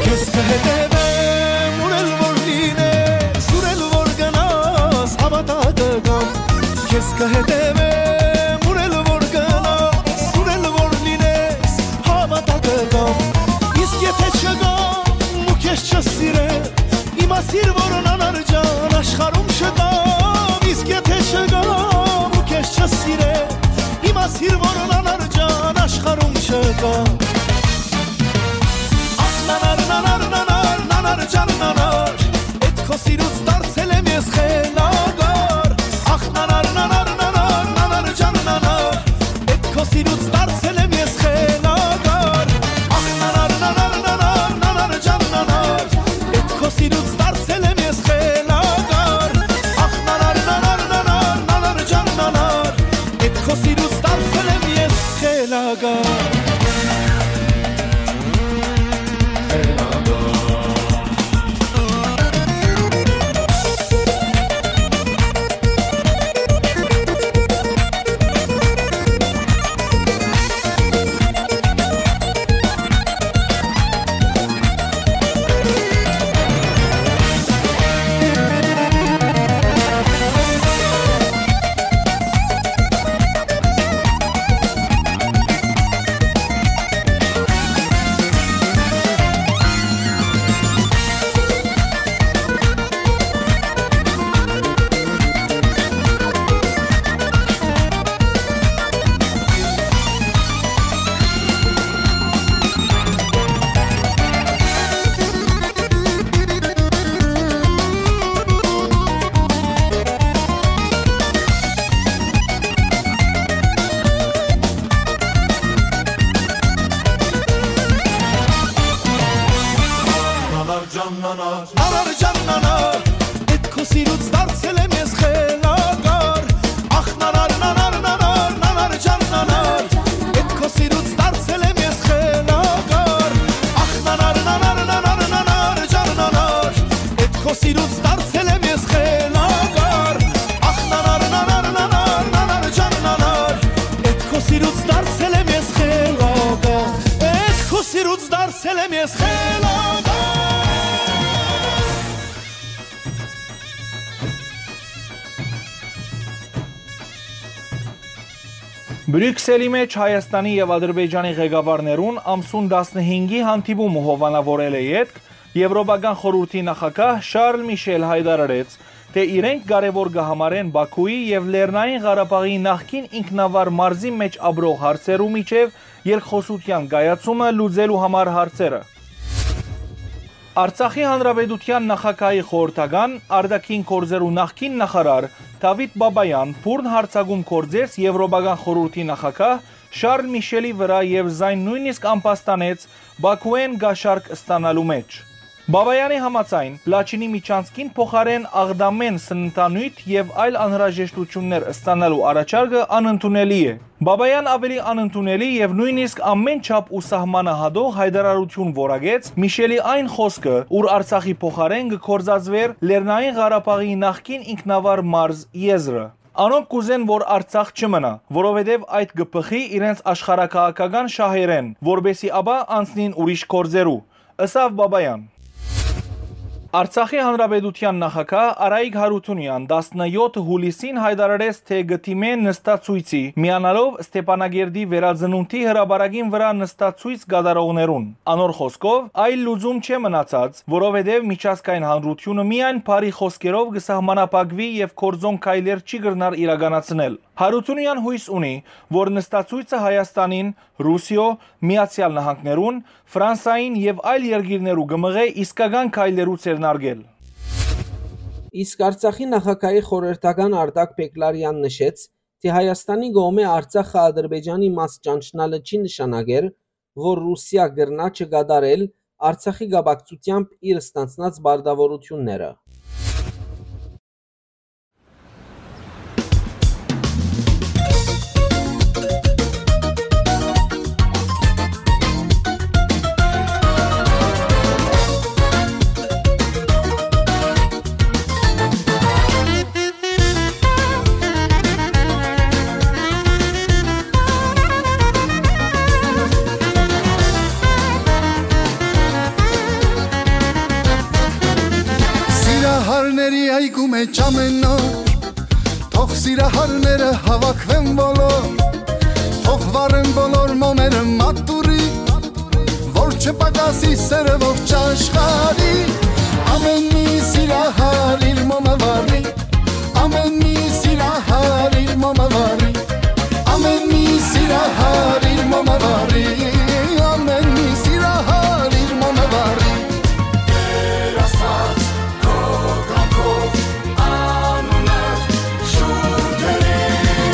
Քեզ կհետևեմ, ուր էլ որ լինես, ուր էլ որ գնաս, հավատա կգամ։ Քեզ կհետևեմ, ուր էլ որ գնաս, ուր էլ որ լինես, հավատա կգամ։ Իսկ եթե չգամ ու քեզ չսիրեմ, իմացիր, որ անանար ջան աշխարհում չկամ։ Իսկ եթե չգամ ու քեզ չսիրեմ, իմացիր, որ անանար ջան աշխարհում չկամ։ Ախ, նանար, նանար, նանար, նանար ջան, նանար, էդ քո սիրուց դարձել եմ ես խելագար։ Ախ, նանար, նանար, նանար, նանար ջան, նանար, էդ քո սիրուց դարձել եմ ես խելագար։ Ախ, նանար, նանար, նանար, նանար ջան, նանար, էդ քո սիրուց դարձել եմ ես խելագար։ Ախ, նանար, նանար, նանար, նանար ջան, նանար, էդ քո սիրուց դարձել եմ ես խելագար։ Անար ջան, անար, էդ քո սիրուց դարձել եմ ես խելագար։ Ախ, նանար, նանար, նանար, նանար ջան, նանար, էդ քո սիրուց դարձել եմ ես խելագար։ Ախ, նանար, նանար, նանար, նանար ջան, նանար, էդ քո սիրուց դարձել եմ ես խելագար։ Ախ, նանար, նանար, նանար, նանար ջան, նանար, էդ քո սիրուց դարձել եմ ես խելագար։ Էդ քո սիրուց դարձել եմ ես խելագար։ Բրիւքսելի մէջ Հայաստանի եւ Ադրբեջանի ղեկավարներուն ամսուն տասնհինգի հանդիպումը հովանաւորելէ ետք Եւրոպական խորհուրդի նախագահ Շարլ Միշել յայտարարեց, թէ իրենք կարեւոր կը համարեն Բաքուի եւ Լեռնային Ղարաբաղի նախկին ինքնավար մարզի մէջ ապրող հարցերու միջեւ երկխօսութեան կայացումը լուծելու համար հարցերը։ Արցախի Հանրապետութեան նախագահի խորհրդական, արտաքին գործերու նախկին նախարար Դավիթ Բաբայան բուռն յարձակում գործեց Եվրոպական խորհուրդի նախագահ Շարլ Միշելի վրայ եւ զայն նոյնիսկ ամբաստանեց Բաքուէն կաշառք ստանալու մէջ։ Բաբայանի համաձայն, Լաչինի միջանցքին փոխարէն Աղդամէն սննդանիւթ եւ այլ անհրաժեշտութիւններ ստանալու առաջարկը անընդունելի է։ Բաբայան աւելի անընդունելի եւ նոյնիսկ ամէն չափ ու սահմանահատող յայտարարութիւն որակեց Միշելի այն խօսքը, ուր Արցախի փոխարէն կը գործածուէր Լեռնային Ղարաբաղի նախկին ինքնավար մարզ եզրը։ Անոնք կ'ուզեն, որ Արցախ չմնայ, որովհետեւ այդ կը բխի իրենց աշխարհաքաղաքական շահերէն, որպէսզի ապա անցնին ուրիշ գործերու, ըսաւ Բաբայան։ Արցախի Հանրապետութեան նախագահ Արայիկ Հարութունեան տասնեօթ յուլիսին յայտարարեց, թէ կը դիմէ նստացոյցի, միանալով Ստեփանակերտի վերածնունդի հրապարակին վրայ նստացոյց կատարողներուն։ Անոր խօսքով, այլ լուծում չէ մնացած, որովհետեւ միջազգային հանրութիւնը միայն բարի խօսքերով կը սահմանափակուի եւ գործոն քայլեր չի կրնար իրականացնել։ Հարութունեան յոյս ունի, որ նստացոյցը Հայաստանին Ռուսիոյ, Միացեալ Նահանգներուն, Ֆրանսային եւ այլ երկիրներու կը մղէ իսկական քայլերու ձեռնարկել։ Իսկ Արցախի նախագահի խորհրդական Արտակ Պեկլարեան նշեց, թէ Հայաստանի կողմէ Արցախը Ադրբեջանի մաս ճանչնալը չի նշանակեր, որ Ռուսիա կրնայ չկատարել Արցախի կապակցութեամբ իր ստանձնած պարտաւորութիւնները։ Սիրահարների այգու մէջ ամեն օր, թող սիրահարները հավաքվեն բոլոր, թող վառեն բոլոր մոմերը մատուռի, որ չպակասի սերը ողջ աշխարհի, ամեն մի սիրահար իր մոմը վառի, ամեն մի սիրահար իր մոմը վառի, ամեն մի սիրահար իր մոմը վառի, ամեն մի սիրահար իր մոմը վառի։ Տեր Աստված, քո կամքով անունդ շուրջ դրի։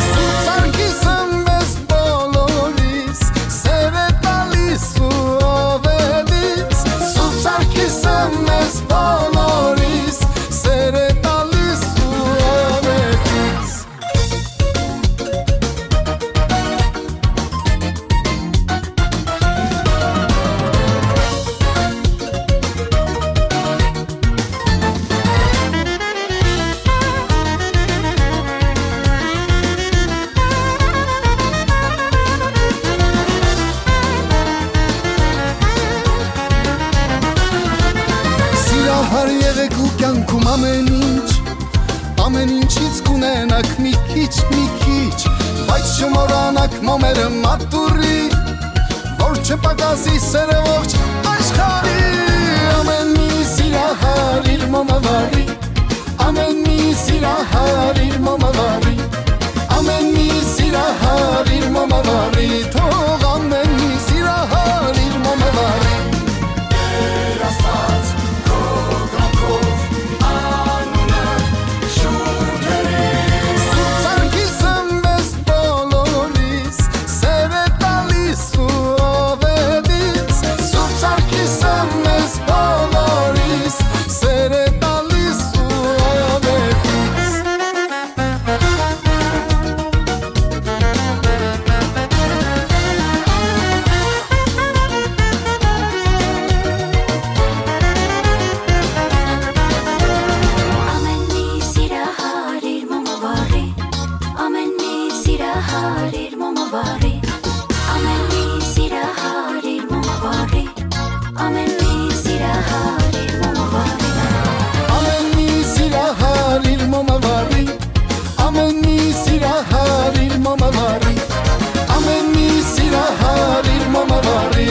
Սուրբ Սարգիսը մեզ բոլորիս սեր է տալիս ու ով է դից։ Սուրբ Սարգիսը մեզ բոլորիս սեր է տալիս ու ով է դից։ Սիրահար եղեք ու կյանքում ամեն ինչ, ամեն ինչից կունենաք մի քիչ, մի քիչ, բայց չմոռանաք մոմերը մատուռի, որ չպակասի սերը ողջ աշխարհի, ամեն մի սիրահար իր մոմը վառի, ամեն մի սիրահար իր մոմը վառի, ամեն մի սիրահար իր մոմը վառի, թող ամեն մի սիրահար իր մոմը վառի։ Տեր Աստված, քո կամքով անունը շուրջ դրի։ Սուրբ Սարգիսը մեզ բոլորիս սեր է տալիս ու ով է դից։ Սուրբ Սարգիսը մեզ բոլորիս սեր է տալիս ու ով է դից։ Ամեն մի սիրահար իր մոմը վառի, ամեն մի սիրահար իր մոմը վառի, ամեն մի սիրահար իր մոմը վառի, ամեն մի սիրահար իր մոմը վառի։ Ամեն մի սիրահար իր մոմը վառի, ամեն մի սիրահար իր մոմը վառի, ամեն մի սիրահար իր մոմը վառի,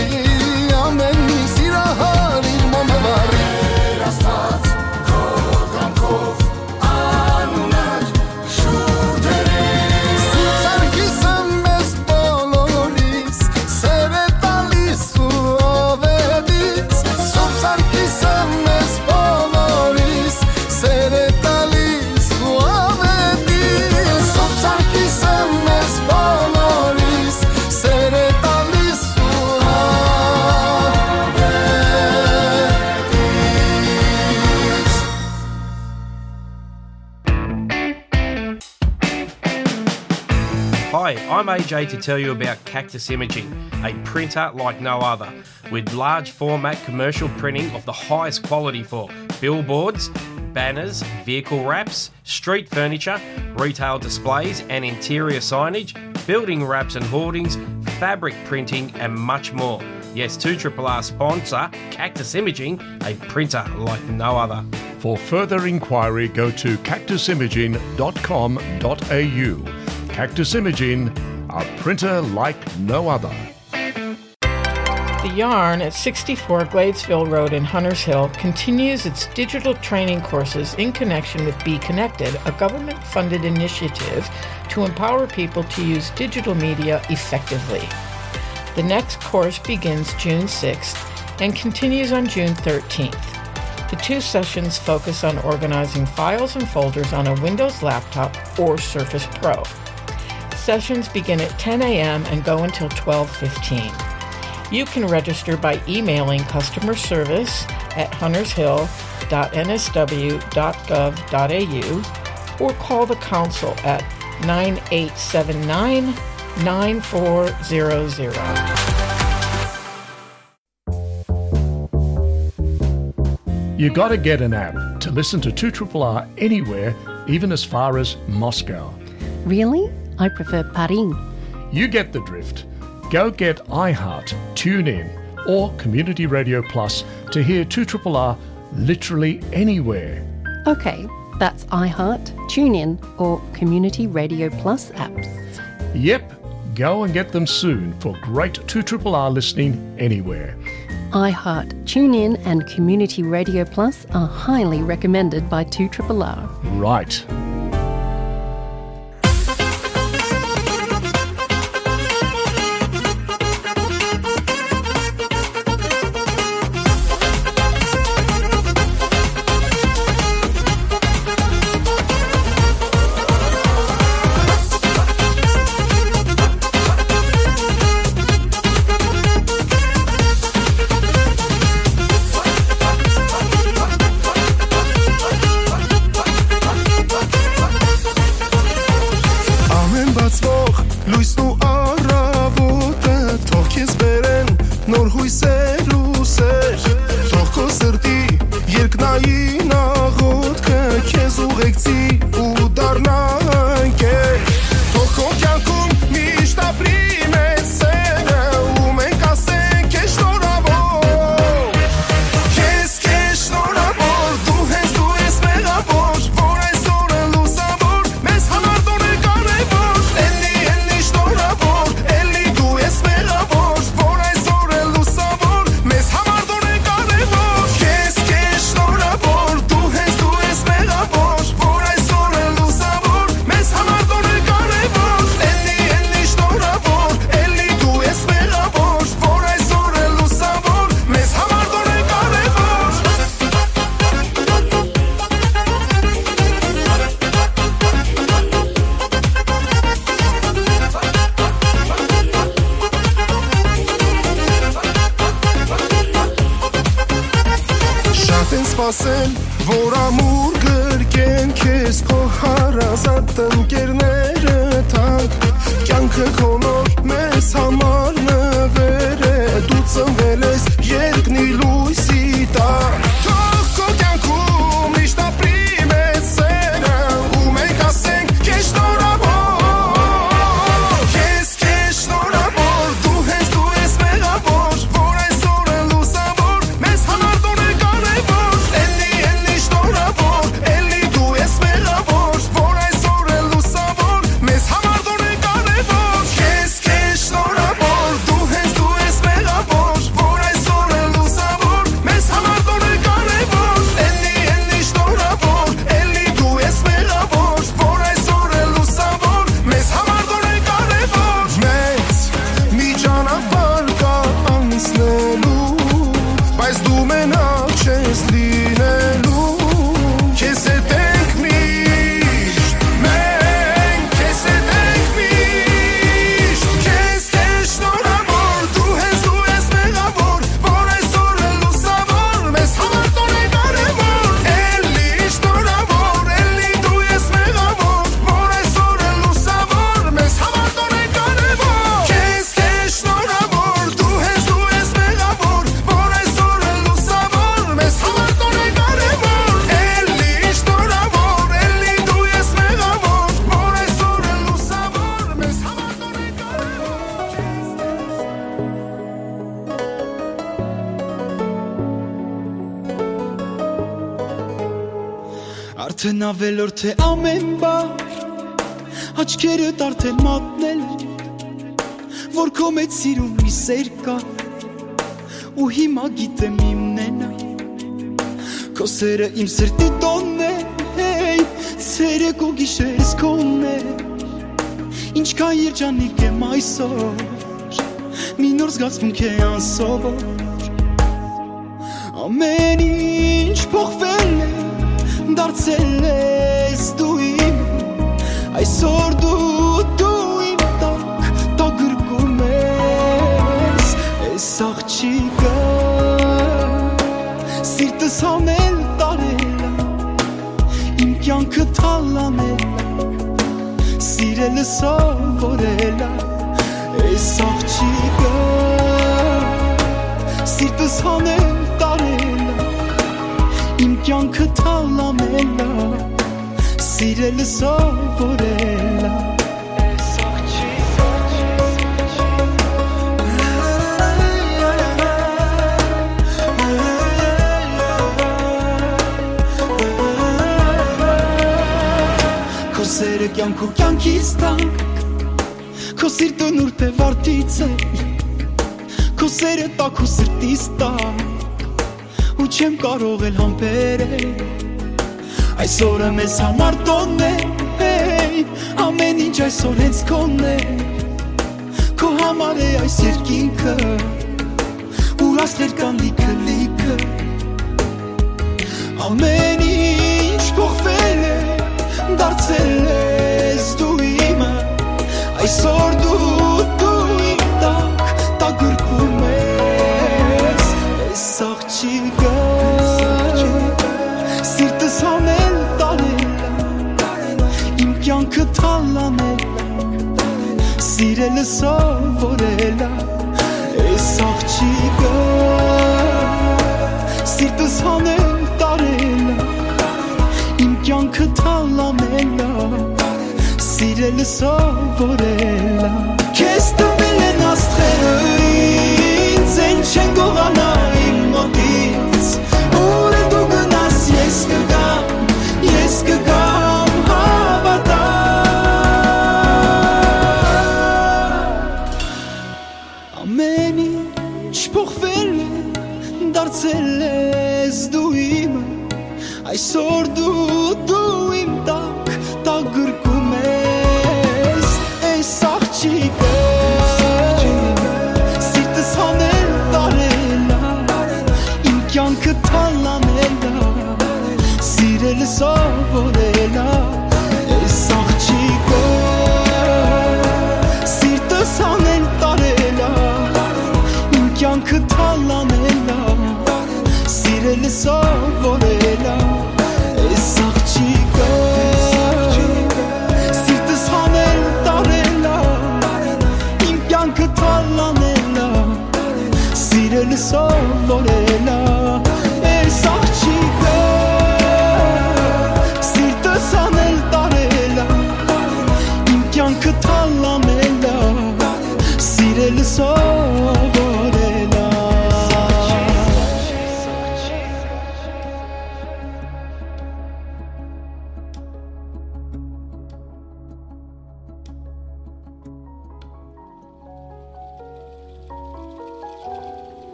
ամեն մի սիրահար իր մոմը վառի։ Տեր Աստված, քո կամքով անունդ շուրջ դրի։ Սուրբ Սարգիսը մեզ բոլորիս սեր է տալիս ու ով է դից։ Սուրբ Սարգիսը մեզ բոլորիս սեր է տալիս ու ով է դից։ Սուրբ Սարգիսը մեզ բոլորիս սեր է տալիս ու ով է դից։ Hi, I'm A J to tell you about Cactus Imaging, a printer like no other, with large format commercial printing of the highest quality for billboards, banners, vehicle wraps, street furniture, retail displays and interior signage, building wraps and hoardings, fabric printing, and much more. Yes, two triple R sponsor Cactus Imaging, a printer like no other. For further inquiry, go to cactus imaging dot com dot a u. Cactus Imaging, a printer like no other. The Yarn at sixty-four Gladesville Road in Hunters Hill continues its digital training courses in connection with Be Connected, a government-funded initiative to empower people to use digital media effectively. The next course begins June sixth and continues on June thirteenth. The two sessions focus on organizing files and folders on a Windows laptop or Surface Pro. Sessions begin at ten a.m. and go until twelve fifteen. You can register by emailing customer service at huntershill.nsw.gov.au or call the council at nine eight seven nine, nine four zero zero. You gotta get an app to listen to two triple R anywhere, even as far as Moscow. Really? I prefer Paris. You get the drift. Go get iHeart, TuneIn, or Community Radio Plus to hear two triple R literally anywhere. Okay, that's iHeart, TuneIn, or Community Radio Plus apps. Yep, go and get them soon for great two triple R listening anywhere. iHeart, TuneIn, and Community Radio Plus are highly recommended by two triple R. Right. Ամեն բացվող լույսն ու առավոտը թող քեզ բերեն նոր հույսեր ու սեր, թող քո սրտի երկնային աղոթքը քեզ ուղեկցի ու դառնա ընկեր, թող քո կյանքում միշտ ապրի մեծ սերը ու մենք ասենք քեզ շնորհավոր, քեզ, քեզ շնորհավոր, դու հենց դու ես մեղավոր, որ այսօր է լուսավոր, մեզ համար դու ես կարևոր, էլի, էլի շնորհավոր, էլի դու ես մեղավոր, որ այսօր է լուսավոր, մեզ համար դու ես կարևոր, քեզ, քեզ շնորհավոր, դու հենց դու ես մեղավոր, որ այսօր է լուսավոր, մեզ համար դու ես կարևոր, էլի, էլի շնորհավոր, էլի դու ես մեղավոր, որ այսօր է լուսավոր, մեզ համար դու ես կարևոր։ Շատ են սպասել, որ ամուր գրկեն քեզ քո հարազատ ընկերները թանկ, կյանքը քո նոր մեզ համար նվեր է, դու ծնվել ես երկնի լույսի տակ, թող քո կյանքում միշտ ապրի մեծ սերը, ու մենք ասենք քեզ շնորհավոր, քեզ, քեզ շնորհավոր, դու հենց դու ես մեղավոր, որ այսօր է լուսավոր, մեզ համար դու ես կարևոր, էլի, էլի շնորհավոր, էլի դու ես մեղավոր, որ այսօր է լուսավոր, մեզ համար դու ես կարևոր, քեզ, քեզ շնորհավոր, դու հենց դու ես մեղավոր, որ այսօր է լուսավոր, մեզ համար դու ես կարևոր, էլի, էլի շնորհավոր, էլի դու ես մեղավոր, որ այսօր է լուսավոր, մեզ համար դու ես կարևոր, մեծ մի ճանապարհ կա անցնելու, բայց դու մենակ չես լինելու, քեզ հետ ենք միշտ, մենք քեզ հետ ենք միշտ, քեզ, քեզ շնորհավոր, դու հենց դու ես մեղավոր, որ այսօր է լուսավոր, մեզ համար դու ես կարևոր, էլի շնորհավոր, էլի դու ես մեղավոր, որ այսօր է լուսավոր, մեզ համար դու ես կարևոր, քեզ, քեզ շնորհավոր, դու հենց դու ես մեղավոր, որ այսօր է լուսավոր, մեզ համար դու ես կարևոր, էլի շնորհավոր, էլի դու ես մեղավոր, որ այսօր է լուսավոր, մեզ համար դու ես կարևոր, քեզ, քեզ Արդեն ավելորդ է ամեն բան, աչքերդ արդեն մատնել, որ քո մեջ սիրուն մի սեր կա, ու հիմա գիտեմ իմն է նա, քո սերը իմ սրտի տոնն է, հեյ, ցերեկ ու գիշերս քոնն է, ինչքան երջանիկ եմ այսօր, Մի նոր զգացմունք է անսովոր։ Ամեն ինչ փոխվել է, դարձել ես դու իմ։ Այսօր դու, դու իմ տակ, տակ գրկում ես։ Այս աղջիկը սիրտս հանել տարել ա, իմ կյանքը թալանել ա, սիրելը սովորել ա։ Այս աղջիկը սիրտս հանել տարել ա, իմ կյանքը թալանել ա, սիրելը սովորել ա։ Քո սերը կյանք ու կյանքիս տակ, քո սիրտը նուրբ է վարդից է, քո սերը տակ ու սրտիս տակ, ու չեմ կարող էլ համբերել։ Այսօրը մեզ համար տոնն է, հեյ, ամեն ինչ այսօր հենց քոնն է, քո համար է այս երկինքը, ուր աստղեր կան լիքը, լիքը։ Ամեն ինչ փոխվել է, դարձել ես դու իմը, այսօր դու, դու իմ տակ, տակ գրկում ես։ Այս աղջիկը սիրտս հանել տարել ա, իմ կյանքը թալանել ա, սիրելը սովորել ա։ Այս աղջիկը սիրտս հանել տարել ա, իմ կյանքը թալանել ա, սիրելը սովորել ա։ Քեզ տվել են աստղերը ինձ, են չեն գողանայ իմ մոտից, ուր դու գնաս, ես կգամ, ես կգամ, հավատա։ Ամեն ինչ փոխվել է, դարձել ես դու իմը, այսօր դու, դու իմ տակ, տակ գրկում ես։ Այս աղջիկը սիրտս հանել տարել ա, իմ կյանքը թալանել ա, սիրել սովորել ա։ Այս աղջիկը սիրտս հանել տարել ա, իմ կյանքը թալանել ա, սիրել սովորել ա։ Այս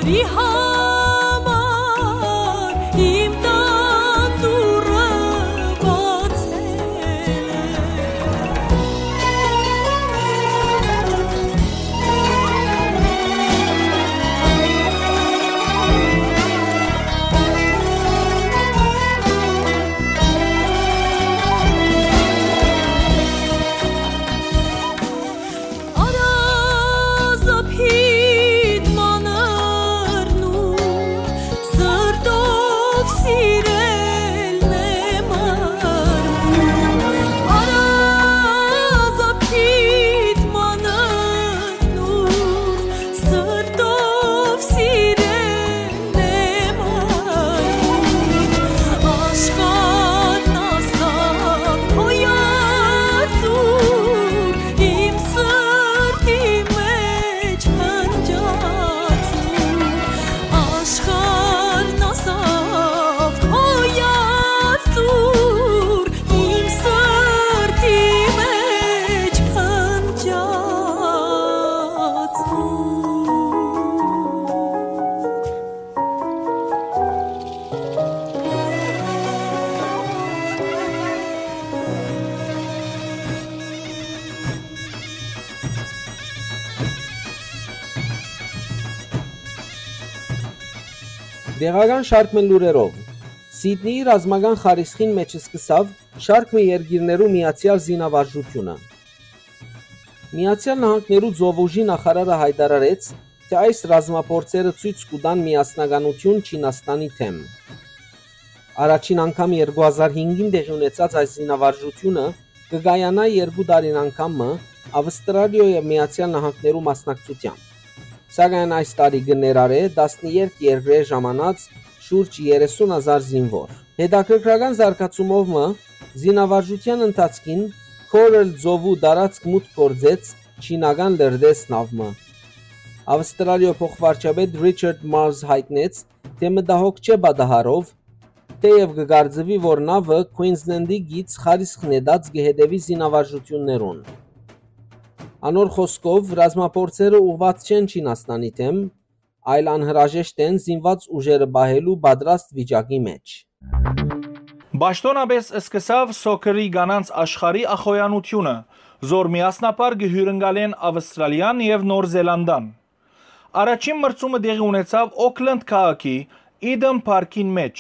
Ի համար իմ տան դուռը բացել է։ Արազապիտ մանրն ու սրտով սիրելն է մարմուն։ Արազապիտ մանրն ու սրտով սիրելն է մարմուն։ Աշխարհն ասաւ քո երդուր, իմ սրտի մեջ փնջած ու աշխարհն ասաւ քո երդուր, իմ սրտի մեջ փնջած ու։ Տեղական շարք մը լուրերով։ Սիդնիի ռազմական խարիսխին մէջ սկսաւ շարք մը երկիրներու միացեալ զինավարժութիւնը։ Միացեալ Նահանգներու ծովուժի նախարարը յայտարարեց, թէ այս ռազմափորձերը ցոյց կու տան միասնականութիւն Չինաստանի դէմ։ Առաջին անգամ երկու հազար հինգին տեղի ունեցած այս զինավարժութիւնը կը կայանայ երկու տարին անգամ մը Ավստրալիոյ եւ Միացեալ Նահանգներու մասնակցութեամբ։ Սակայն այս տարի կը ներառէ տասներկու երկրէ ժամանած շուրջ երեսուն հազար զինուոր։ Հետաքրքրական զարգացումով մը, զինավարժութեան ընթացքին Coral ծովու տարածք մուտք գործեց չինական լրտես նաւ մը։ Ավստրալիոյ փոխվարչապետ Ռիչարդ Մարզ յայտնեց, թէ մտահոգ չէ պատահարով, թէեւ կը կարծուի, որ նաւը Քուինզլենդի գիծ խարիսխ նետած կը հետեւի զինավարժութիւններուն։ Անոր խօսքով, ռազմափորձերը ուղղուած չեն Չինաստանի դէմ, այլ անհրաժեշտ են զինուած ուժերը պահելու պատրաստ վիճակի մէջ։ Պաշտօնապէս սկսաւ սոքերի կանանց աշխարհի ախոյանութիւնը, զոր միասնապար կը հիւրընկալեն Ավստրալիան եւ Նոր Զելանդան։ Առաջին մրցումը տեղի ունեցաւ Օքլենդ քաղաքի Eden Park-ին մէջ,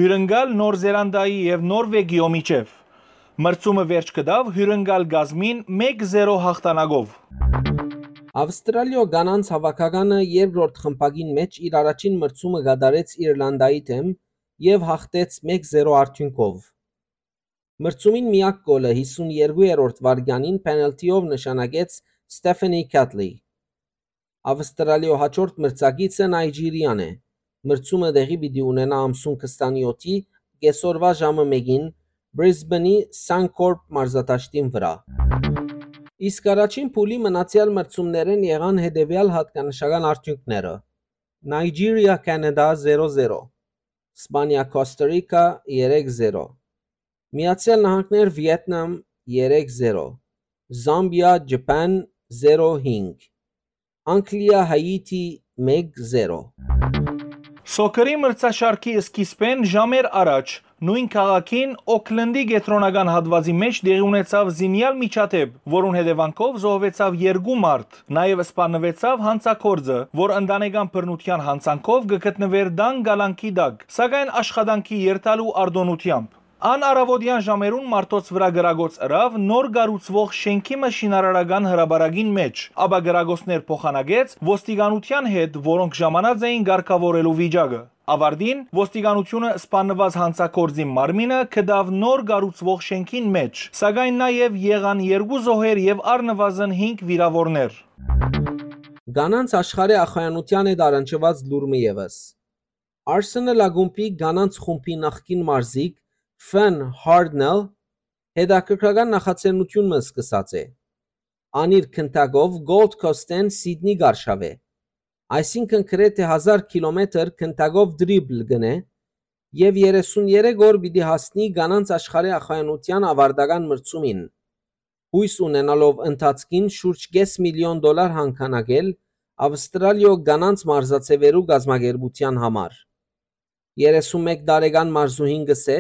հիւրընկալ Նոր Զելանդայի եւ Նորվեգիոյ միջեւ։ Մրցումը վերջ կտաւ հիւրընկալ կազմին մէկ զերո յաղթանակով։ Ավստրալիոյ կանանց հաւաքականը երկրորդ խմբակին մէջ իր առաջին մրցումը կատարեց Իրլանդայի դէմ եւ յաղթեց մէկ զերո արդիւնքով։ Մրցումին միակ կոլը հիսուն երկրորդ վայրկեանին պենալթիով նշանակեց Ստեֆանի Քաթլի։ Ավստրալիոյ հաջորդ մրցակիցը Նայճիրիան է։ Մրցումը տեղի պիտի ունենայ ամսուն քսանեթի կեսօրուա ժամը մէկին Բրիզբենի Սանքորպ մարզադաշտին վրայ։ Իսկ առաջին փուլի մնացեալ մրցումներէն եղան հետեւեալ յատկանշական արդիւնքները. Նայճիրիա, Քանադա՝ զերո զերո, Սպանիա, Կոստա Ռիքա՝ երեք զերո, Միացեալ Նահանգներ, Վիեթնամ՝ երեք զերո, Զամբիա, Ջապան՝ զերո հինգ, Անգլիա, Հայիթի՝ մեկ զերո։ Սոքերի մրցաշարքի սկիզբէն ժամեր առաջ նոյն քաղաքին Օքլենդի կեդրոնական հատուածի մէջ տեղի ունեցաւ զինեալ միջադէպ, որուն հետեւանքով զոհուեցաւ երկու մարդ։ Նաեւ սպաննուեցաւ յանցագործը, որ ընտանեկան բռնութեան յանցանքով կը գտնուէր տան կալանքի տակ, սակայն աշխատանքի երթալու արտօնութեամբ։ Ան առաւօտեան ժամերուն մարդոց վրայ կրակոց ըրաւ նոր կառուցուող շէնքի մը շինարարական հրապարակին մէջ, ապա կրակոցներ փոխանակեց ոստիկանութեան հետ, որոնք ժամանած էին կարգաւորելու վիճակը։ Ավարտին, ոստիկանութիւնը սպաննուած յանցագործին մարմինը գտաւ նոր կառուցուող շէնքին մէջ, սակայն նաեւ եղան երկու զոհեր եւ առնուազն հինգ վիրաւորներ։ Կանանց աշխարհի ախոյանութեան հետ առնչուած լուր մը եւս։ Arsenal ակումբի կանանց խումբի նախկին մարզիկ Fern Hardnell հետաքրքրական նախաձեռնութիւն մը սկսած է։ Ան իր քնտակով Gold Coast-էն Սիդնի կ'արշաւէ, այսինքն գրեթէ հազար քիլոմետր քնտակով դրիբլ կ'ընէ եւ երեսուն երեք օր պիտի հասնի կանանց աշխարհի ախոյանութեան աւարտական մրցումին, յոյս ունենալով ընթացքին շուրջ կէս միլիոն դոլար յանգանակել Աւստրալիոյ կանանց մարզաձեւերու կազմակերպութեան համար։ Երեսուն մէկ տարեկան մարզուհին կ'ըսէ,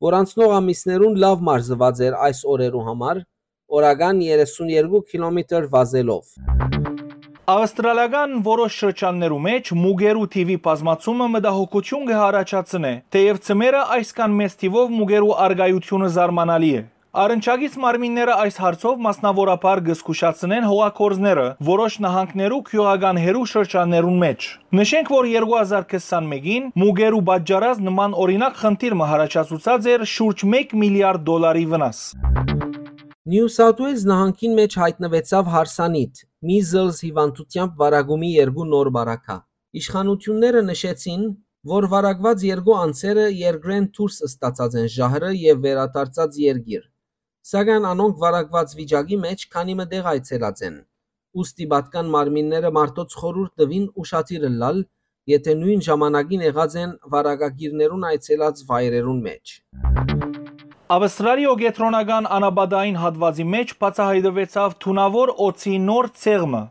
որ անցնող ամիսներուն լաւ մարզուած էր այս օրերու համար, օրական երեսուն երկու քիլոմետր վազելով։ Աւստրալիական որոշ շրջաններու մէջ մուկերու թիւի բազմացումը մտահոգութիւն կը յառաջացնէ, թէեւ ձմեռը այսքան մեծ թիւով մուկերու առկայութիւնը զարմանալի է։ Առնչակից մարմինները այս հարցով մասնաւորաբար կը զգուշացնեն հողագործները, որոշ նահանգներու գիւղական հեռու շրջաններուն մէջ։ Նշենք, որ երկու հազար քսանմէկին մուկերու պատճառած նման օրինակ խնդիր մը յառաջացուցած էր շուրջ մէկ միլիարդ դոլարի վնաս։ Նիու Սաութ Ուելզ նահանգին մէջ յայտնուեցաւ հարսանիթ, measles հիւանդութեամբ վարակումի երկու նոր պարագա։ Իշխանութիւնները նշեցին, որ վարակուած երկու անձերը երկրէն դուրս ստացած են ժահրը եւ վերադարձած երկիր, սակայն անոնք վարակուած վիճակի մէջ քանի մը տեղ այցելած են, ուստի պատկան մարմինները մարդոց խորհուրդ տուին ուշադիր ըլլալ, եթէ նոյն ժամանակին եղած են վարակագիրներուն այցելած վայրերուն մէջ։ Աւստրալիոյ կեդրոնական անապատային հատուածի մէջ բացայայտուեցաւ թունաւոր օձի նոր ցեղ մը։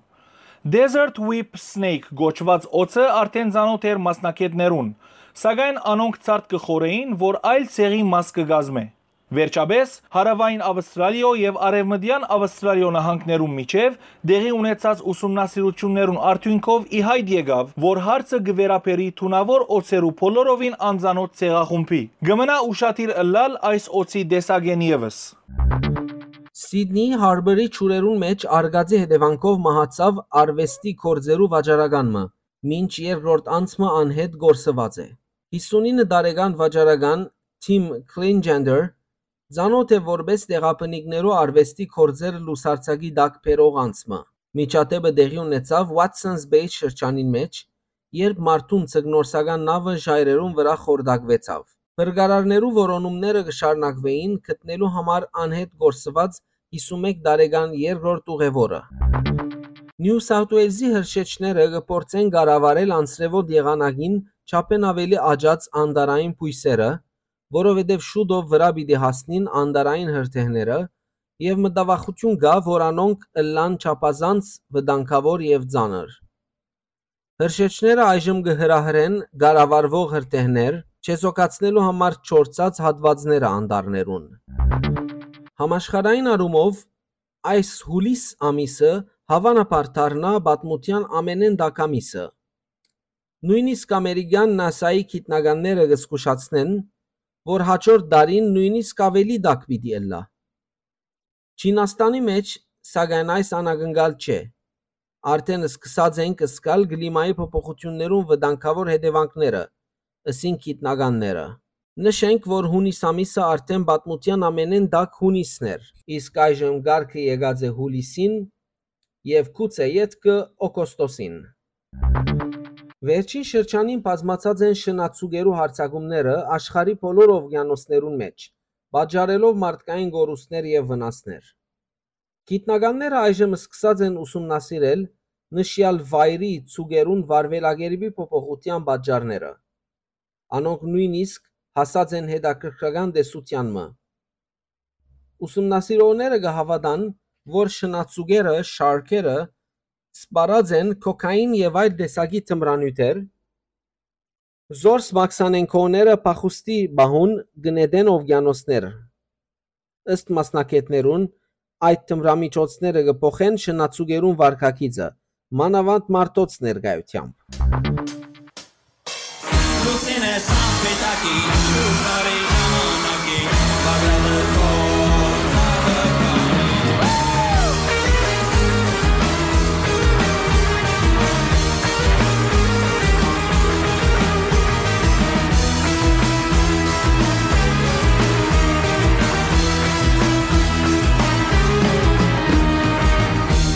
Desert Whip Snake կոչուած օձը արդէն ծանօթ էր մասնագէտներուն, սակայն անոնք ցարդ կը խորհէին, որ այլ ցեղի մաս կը կազմէ։ Վերջապէս, հարաւային Աւստրալիոյ եւ արեւմտեան Աւստրալիոյ նահանգներուն միջեւ տեղի ունեցած ուսումնասիրութիւններուն արդիւնքով ի յայտ եկաւ, որ հարցը կը վերաբերի թունաւոր օձերու բոլորովին անծանօթ ցեղախումբի։ Կը մնայ ուշադիր ըլլալ այս օձի տեսակէն եւս։ Սիդնի Հարբերի ջուրերուն մէջ արկածի հետեւանքով մահացաւ արուեստի գործերու վաճառական մը, մինչ երկրորդ անձ մը անհետ կորսուած է։ Հիսունինը տարեկան վաճառական Թիմ Քլինջենդեր ծանօթ է որպէս տեղաբնիկներու արուեստի գործեր լուսարձակի տակ բերող անձ մը։ Միջադէպը տեղի ունեցաւ Watsons Bay շրջանին մէջ, երբ մարդուն ձկնորսական նաւը ժայռերուն վրայ խորտակուեցաւ։ Փրկարարներու որոնումները կը շարունակուէին գտնելու համար անհետ կորսուած հիսունմէկ տարեկան երկրորդ ուղեւորը։ Նիու Սաութ Ուելզի հրշեջները կը փորձեն կառավարել անձրեւոտ եղանակին չափէն աւելի աճած անտառային բոյսերը, որովհետեւ շուտով վրայ պիտի հասնին անտառային հրդեհները եւ մտավախութիւն կայ, որ անոնք ըլլան չափազանց վտանգաւոր եւ ծանր։ Հրշեջները այժմ կը հրահրեն կառավարուող հրդեհներ, չեզոքացնելու համար չորցած հատուածները անտառներուն։ Համաշխարհային առումով այս յուլիս ամիսը հաւանաբար դառնայ պատմութեան ամենէն տաք ամիսը։ Նոյնիսկ ամերիկեան նասայի գիտնականները կը զգուշացնեն, որ հաջորդ տարին նոյնիսկ աւելի տաք պիտի ըլլայ։ Չինաստանի մէջ, սակայն, այս անակնկալ չէ։ Արդէն սկսած ենք զգալ կլիմայի փոփոխութիւններուն վտանգաւոր հետեւանքները, ըսին գիտնականները։ Նշենք, որ յունիս ամիսը արդէն պատմութեան ամենէն տաք յունիսն էր, իսկ այժմ կարգը եկած է յուլիսին եւ գուցէ ետքը օգոստոսին։ Վերջին շրջանին բազմացած են շնաձուկերու յարձակումները աշխարհի բոլոր օվկիանոսներուն մէջ, պատճառելով մարդկային կորուստներ եւ վնասներ։ Գիտնականները այժմ սկսած են ուսումնասիրել նշեալ վայրի ձուկերուն վարվելակերպի փոփոխութեան պատճառները։ Անոնք նոյնիսկ հասած են հետաքրքրական տեսութեան մը։ Ուսումնասիրողները կը հաւատան, որ շնաձուկերը, շարքերը, սպառած են քոքային եւ այլ տեսակի թմրանիւթեր, զորս մաքսանենքոները փախուստի պահուն կը նետեն օվկիանոսներ։ Ըստ մասնագէտներուն, այդ թմրամիջոցները կը փոխեն շնաձուկերուն վարքագիծը, մանաւանդ մարդոց ներկայութեամբ։ Լուսինե սամպետակի, լուսարի ժամանակի, բաղդադը քո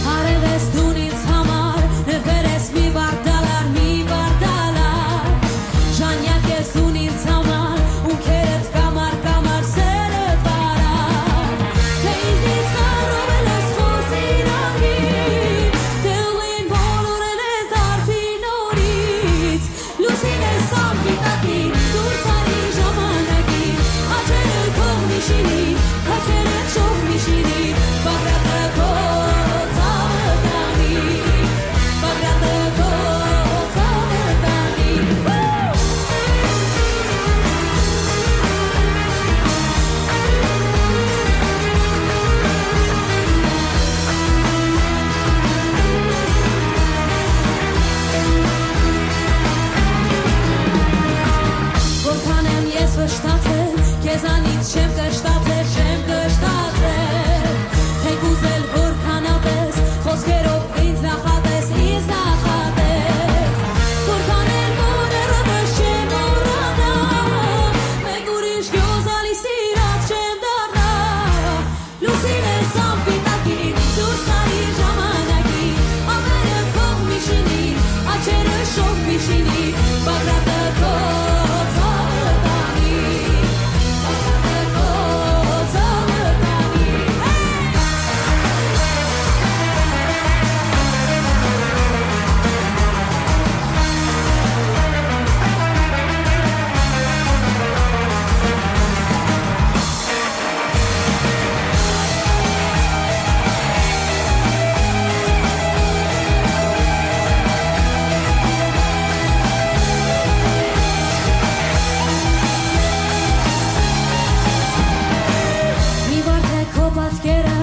Արել ես դուն ինձ համար, նվեր ես մի վարդալար, մի վարդալար։ Ժանյակ ես դուն ինձ համար, ունքերդ կամար, կամար սերը վարար։ Շոյ միշինի, Բագրատը քո ցաւը տանի, Բագրատը քո ցաւը տանի։ Մի վարդէ քո պատկերը,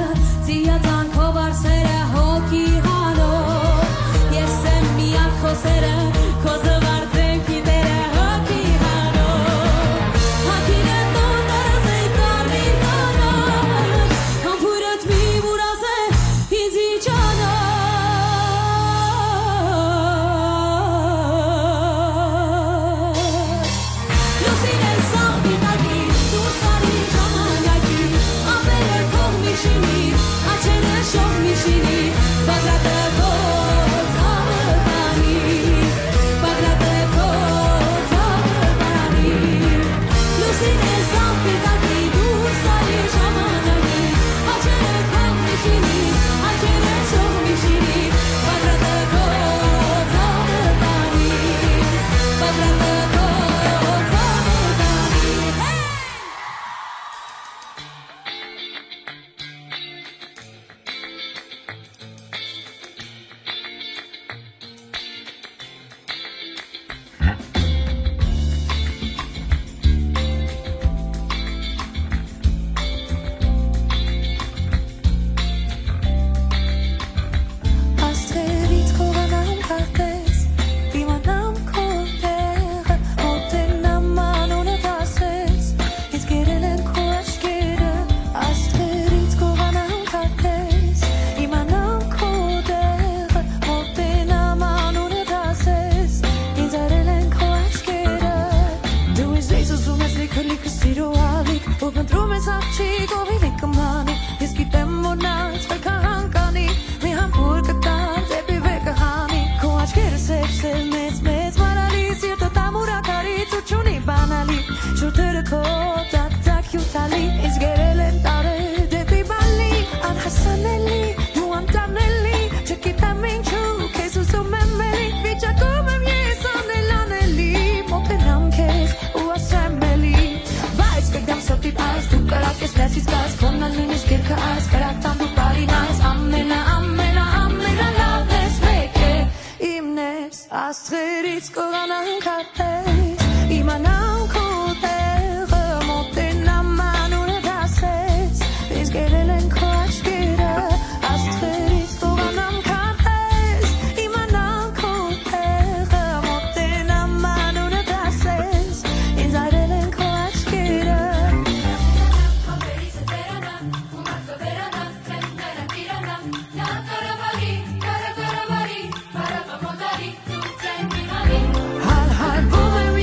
ծիածան քո վարսերը, հոգի հանող։ Ես եմ միակ քո սերը, քո զվարթ դեմքի տերը, հոգի հանող։ Հագինը տոն դարազ է կարմիր տոնով, համբուրդ մի վուրազ է ինձի ճանաչ։ Լուսինը սաղ պիտակի, դուրս արի ժամանակի, ափերը քո միշինի, աչքերը շող միշինի, Բագրատը քո ցաւը տանի, Բագրատը քո ցաւը տանի։ Լուսինը սաղ պիտակի, դուրս արի ժամանակի, աչքերը քո միշինի, աչքերը շող միշինի, Բագրատը քո ցաւը տանի, Բագրատը քո ցաւը տանի։ Աստղերից կողանան քարտեզ, իմանամ քո տեղը, մոտենամ անունդ ասես, ինձ կերել են քո աչքերը, աստղերից կողանան քարտեզ, իմանամ քո տեղը, մոտենամ անունդ ասես, ինձ արել են քո աչքերը, դու ինձ լիք ուզում ես, լիքը, լիքը սիրո ալիք, ու փնտրում ես աղջիկ, ով իլի կմանի, ես գիտեմ, որ նա ինձ վեր կհանկանի, մի համբուր կտամ դեպի վեր կհանի, քո աչքերը սև-սև, մեծ-մեծ մարալի, սիրտը տամուր ակարի, ցուրտ չունի բանալի, շուրթերը քո տակ-տակ հիւթալի, ինձ գերել են տարեր դեպի բալի, անհասանելի, դու անտանելի, չգիտեմ ինչու, քեզ ուզում եմ էլի, վիճակում եմ ես անել անելի, մոտենամ քեզ ու ասեմ էլի, բայց կգամ սրտիդ այս, դու կրակ ես ներսից կաս, քոնն ալ նույնիսկ երկը այս, կրակ տամ դու բարին այս, ամենա, ամենա, ամենալավն ես, մեկ է, իմն ես, աստղերից կողանան քարտեզ, իմանամ քո տեղը, մոտենամ անունդ ասես, ինձ գերել են քո աչքերը, աստղերից կողանան քարտեզ, իմանամ քո տեղը, մոտենամ անունդ ասես, ինձ արել են քո աչքերը։ Հալհալվում եմ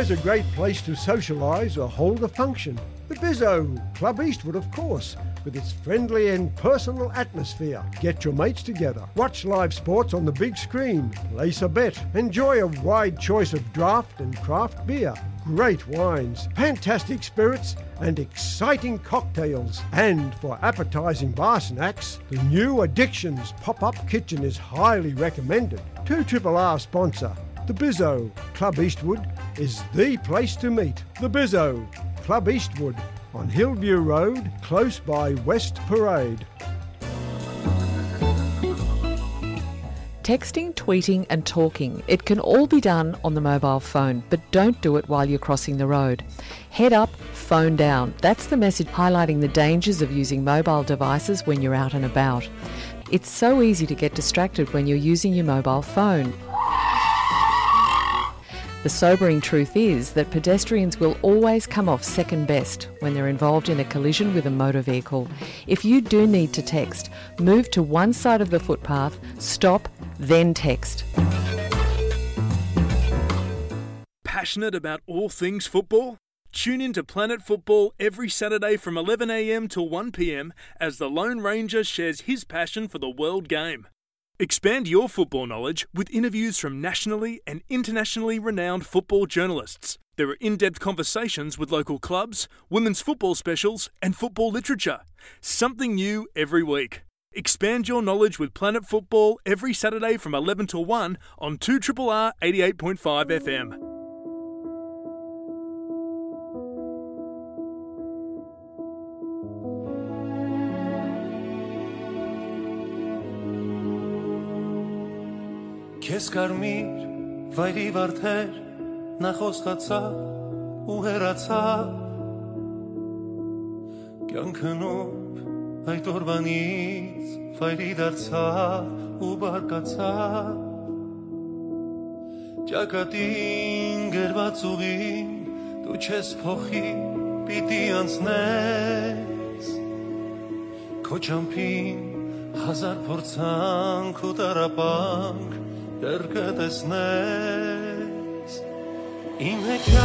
It's a great place to socialise or hold a function. The Bizzo, Club Eastwood, of course, with its friendly and personal atmosphere. Get your mates together, watch live sports on the big screen, place a bet, enjoy a wide choice of draft and craft beer, great wines, fantastic spirits, and exciting cocktails. And for appetising bar snacks, the new Addictions pop-up kitchen is highly recommended. Two Triple R sponsor, the Bizzo, Club Eastwood, is the place to meet. The Bizzo, Club Eastwood, on Hillview Road, close by West Parade. Texting, tweeting, and talking, it can all be done on the mobile phone, but don't do it while you're crossing the road. Head up, phone down. That's the message highlighting the dangers of using mobile devices when you're out and about. It's so easy to get distracted when you're using your mobile phone. The sobering truth is that pedestrians will always come off second best when they're involved in a collision with a motor vehicle. If you do need to text, move to one side of the footpath, stop, then text. Passionate about all things football? Tune in to Planet Football every Saturday from eleven a m till one p m as the Lone Ranger shares his passion for the world game. Expand your football knowledge with interviews from nationally and internationally renowned football journalists. There are in-depth conversations with local clubs, women's football specials, and football literature. Something new every week. Expand your knowledge with Planet Football every Saturday from eleven to one on two triple R eighty-eight point five F M. Քեզ կարմիր վայրի վարդեր, նա խոստացաւ ու հեռացաւ։ Կեանքը նուրբ այդ օրվանից վայրի դարձաւ ու բարկացաւ։ Ճակատին գրված ուղին դու չես փոխի, պիտի անցնես։ Քո ճամբին հազար փորձանք ու տառապանք դեռ կը տեսնես։ Իմ հեքիաթ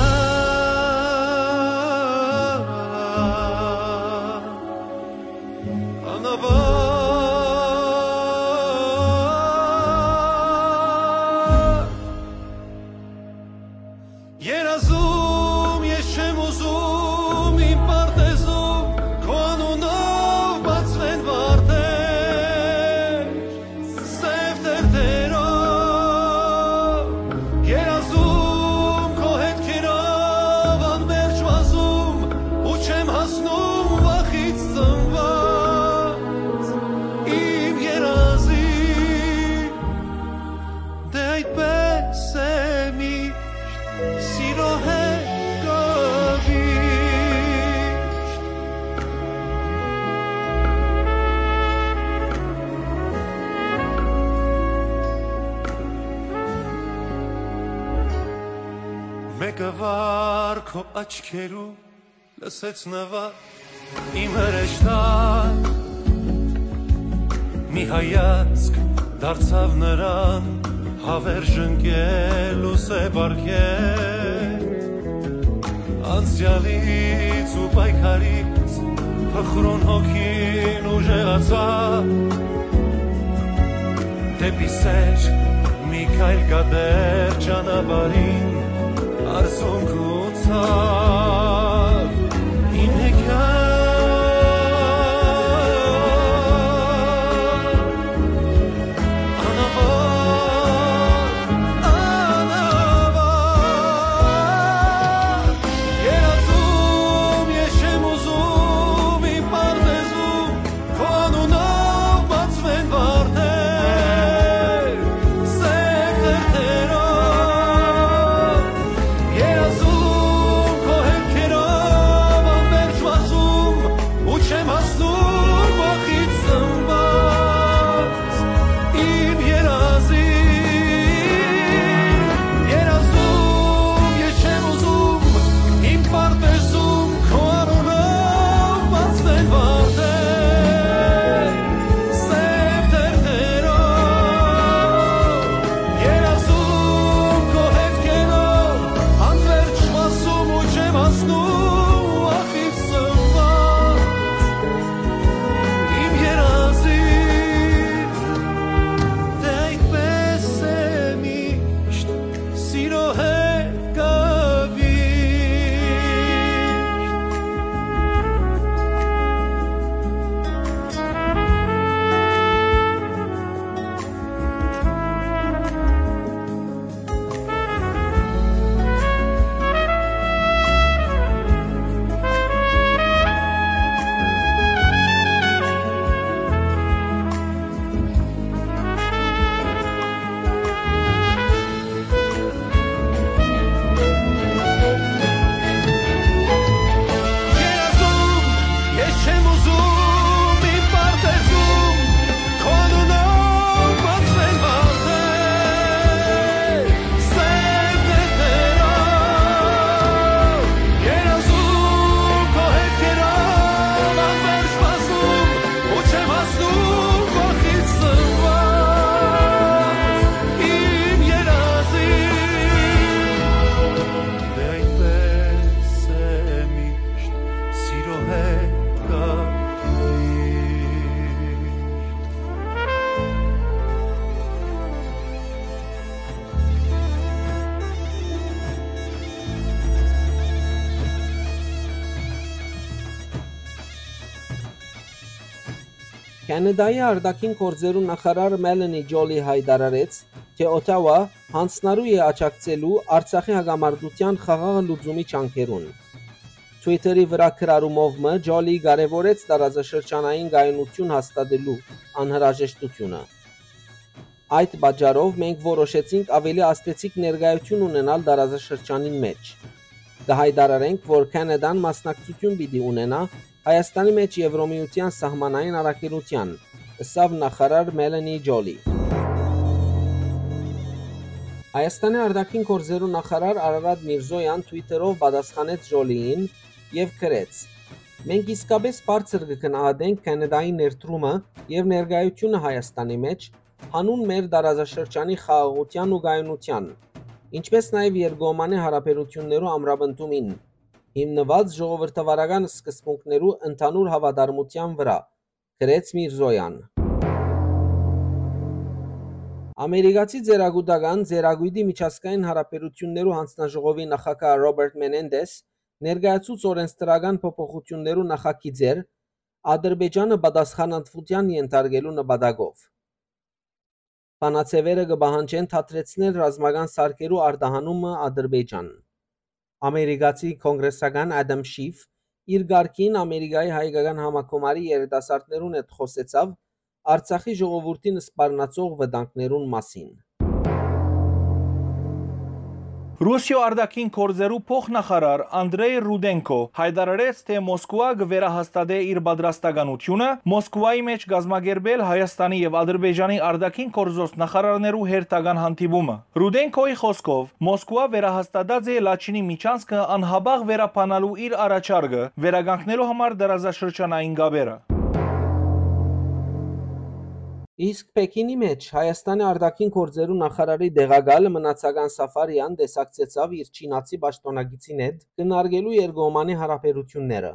անավարտ երազում ես չեմ ուզում իմ պարտեզում քո անունով բացվեն վարդեր, սեւ թերթերով երազում քո հետքերով անմերժ վազում ու չեմ հասնում վախից ծնված իմ երազի։ Դե այդպես է միշտ, սիրո հետ կովիշտ։ Մեկը վար քո աչքերու լսեց նվագ իմ հրեշտակ, մի հայացք դարձաւ նրան, հավերժ ընկել ու սեպ արկել։ Անցյալից ու պայքարից փխրուն հոգին ուժեղացաւ, դեպի սեր մի քայլ կատեր ճանապարհին արցունք ու ցաւ։ Իմ հեքիաթ անավարտ, անավարտ երազում ես չեմ ուզում իմ պարտեզում քո անունով բացվեն վարդեր, սեփ թերթերով երազում քո հետքերով Քանեդայի արտաքին գործերու նախարար Մելանի Ճոլի յայտարարեց, թէ Օթաուա յանձնառու է աջակցելու Արցախի հակամարտութեան խաղաղ լուծումի ջանքերուն։ Twitter-ի վրայ գրառումով մը Ճոլի կարեւորեց տարածաշրջանային կայունութիւն հաստատելու անհրաժեշտութիւնը։ «Այդ պատճառով մենք որոշեցինք աւելի ազդեցիկ ներկայութիւն ունենալ տարածաշրջանին մէջ։ Կը յայտարարենք, որ Քանեդան մասնակցութիւն պիտի ունենայ Հայաստանի մէջ Եւրոմիութեան սահմանային առաքելութեան», ըսաւ նախարար Մելանի Ճոլի։ Հայաստանի արտաքին գործերու նախարար Արարատ Միրզոյան Twitter-ով պատասխանեց Ճոլիին եւ գրեց. «Մենք իսկապէս բարձր կը գնահատենք Քանեդայի ներդրումը եւ ներկայութիւնը Հայաստանի մէջ, հանուն մեր տարածաշրջանի խաղաղութեան ու կայունութեան, ինչպէս նաեւ երկկողմանի յարաբերութիւններու ամրապնդումին, հիմնուած ժողովրդավարական սկզբունքներու ընդհանուր հաւատարմութեան վրայ», գրեց Միրզոյան։ Ամերիկացի ծերակուտական ծերակոյտի միջազգային յարաբերութիւններու յանձնաժողովի նախագահ Ռոբերտ Մենենդես ներկայացուց օրենսդրական փոփոխութիւններու նախագիծեր Ադրբեջանը պատասխանատվութեան ենթարկելու նպատակով։ Բանաձեւերը կը պահանջեն դադրեցնել ռազմական սարքերու արտահանումը Ադրբեջան։ Ամերիկացի կոնգրեսական Ադամ Շիֆ իր կարգին Ամերիկայի հայկական համագումարի երիտասարդներուն հետ խօսեցաւ Արցախի ժողովուրդին սպառնացող վտանգներուն մասին։ Ռուսիոյ արտաքին գործերու փոխնախարար Անդրեյ Ռուդենկո յայտարարեց, թէ Մոսկուա կը վերահաստատէ իր պատրաստականութիւնը Մոսկուայի մէջ կազմակերպել Հայաստանի եւ Ադրբեջանի արտաքին գործոց նախարարներու հերթական հանդիպումը։ Ռուդենկոյի խօսքով, Մոսկուա վերահաստատած է Լաչինի միջանցքը անհապաղ վերաբանալու իր առաջարկը, վերականգնելու համար տարածաշրջանային կապերը։ Իսկ Պեքինի մէջ Հայաստանի արտաքին գործերու նախարարի տեղակալ Մնացական Սաֆարեան տեսակցեցաւ իր չինացի պաշտօնակիցին հետ քննարկելու երկկողմանի յարաբերութիւնները։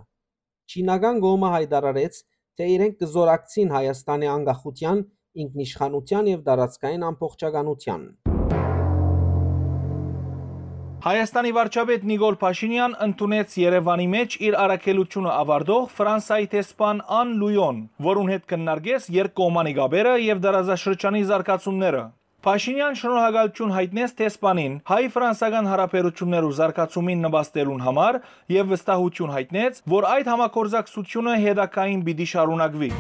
Չինական կողմը յայտարարեց, թէ իրենք կը զօրակցին Հայաստանի անկախութեան, ինքնիշխանութեան եւ տարածքային ամբողջականութեան։ Հայաստանի վարչապետ Նիկոլ Փաշինեան ընդունեց Երեւանի մէջ իր առաքելութիւնը աւարտող Ֆրանսայի դեսպան Ան Լուոն, որուն հետ քննարկեց երկկողմանի կապերը եւ տարածաշրջանի զարգացումները։ Փաշինեան շնորհակալութիւն յայտնեց դեսպանին հայ-ֆրանսական յարաբերութիւններու զարգացումին նպաստելուն համար եւ վստահութիւն յայտնեց, որ այդ համագործակցությունը հետագային պիտի շարունակուի։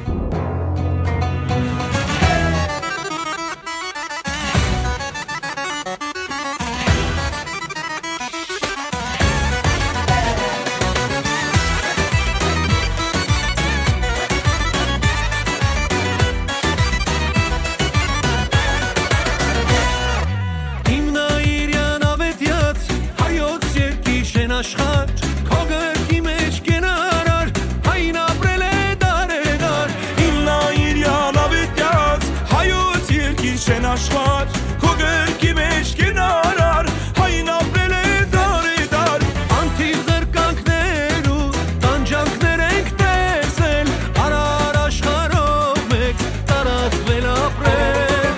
Հիմնայիրյան աւետեաց հայոց երկիր շեն աշխարհ, քո գրքի մէջ կենարար, հայն ապրել է դարեդար։ Հիմնայիրյան աւետեաց հայոց երկիր շեն աշխարհ, քո գրքի մէջ կենարար, հայն ապրել է դարեդար։ Անթիվ զրկանքներու տանջանքներ ենք տեսել, արար աշխարհով մէկ տարածվել ապրել։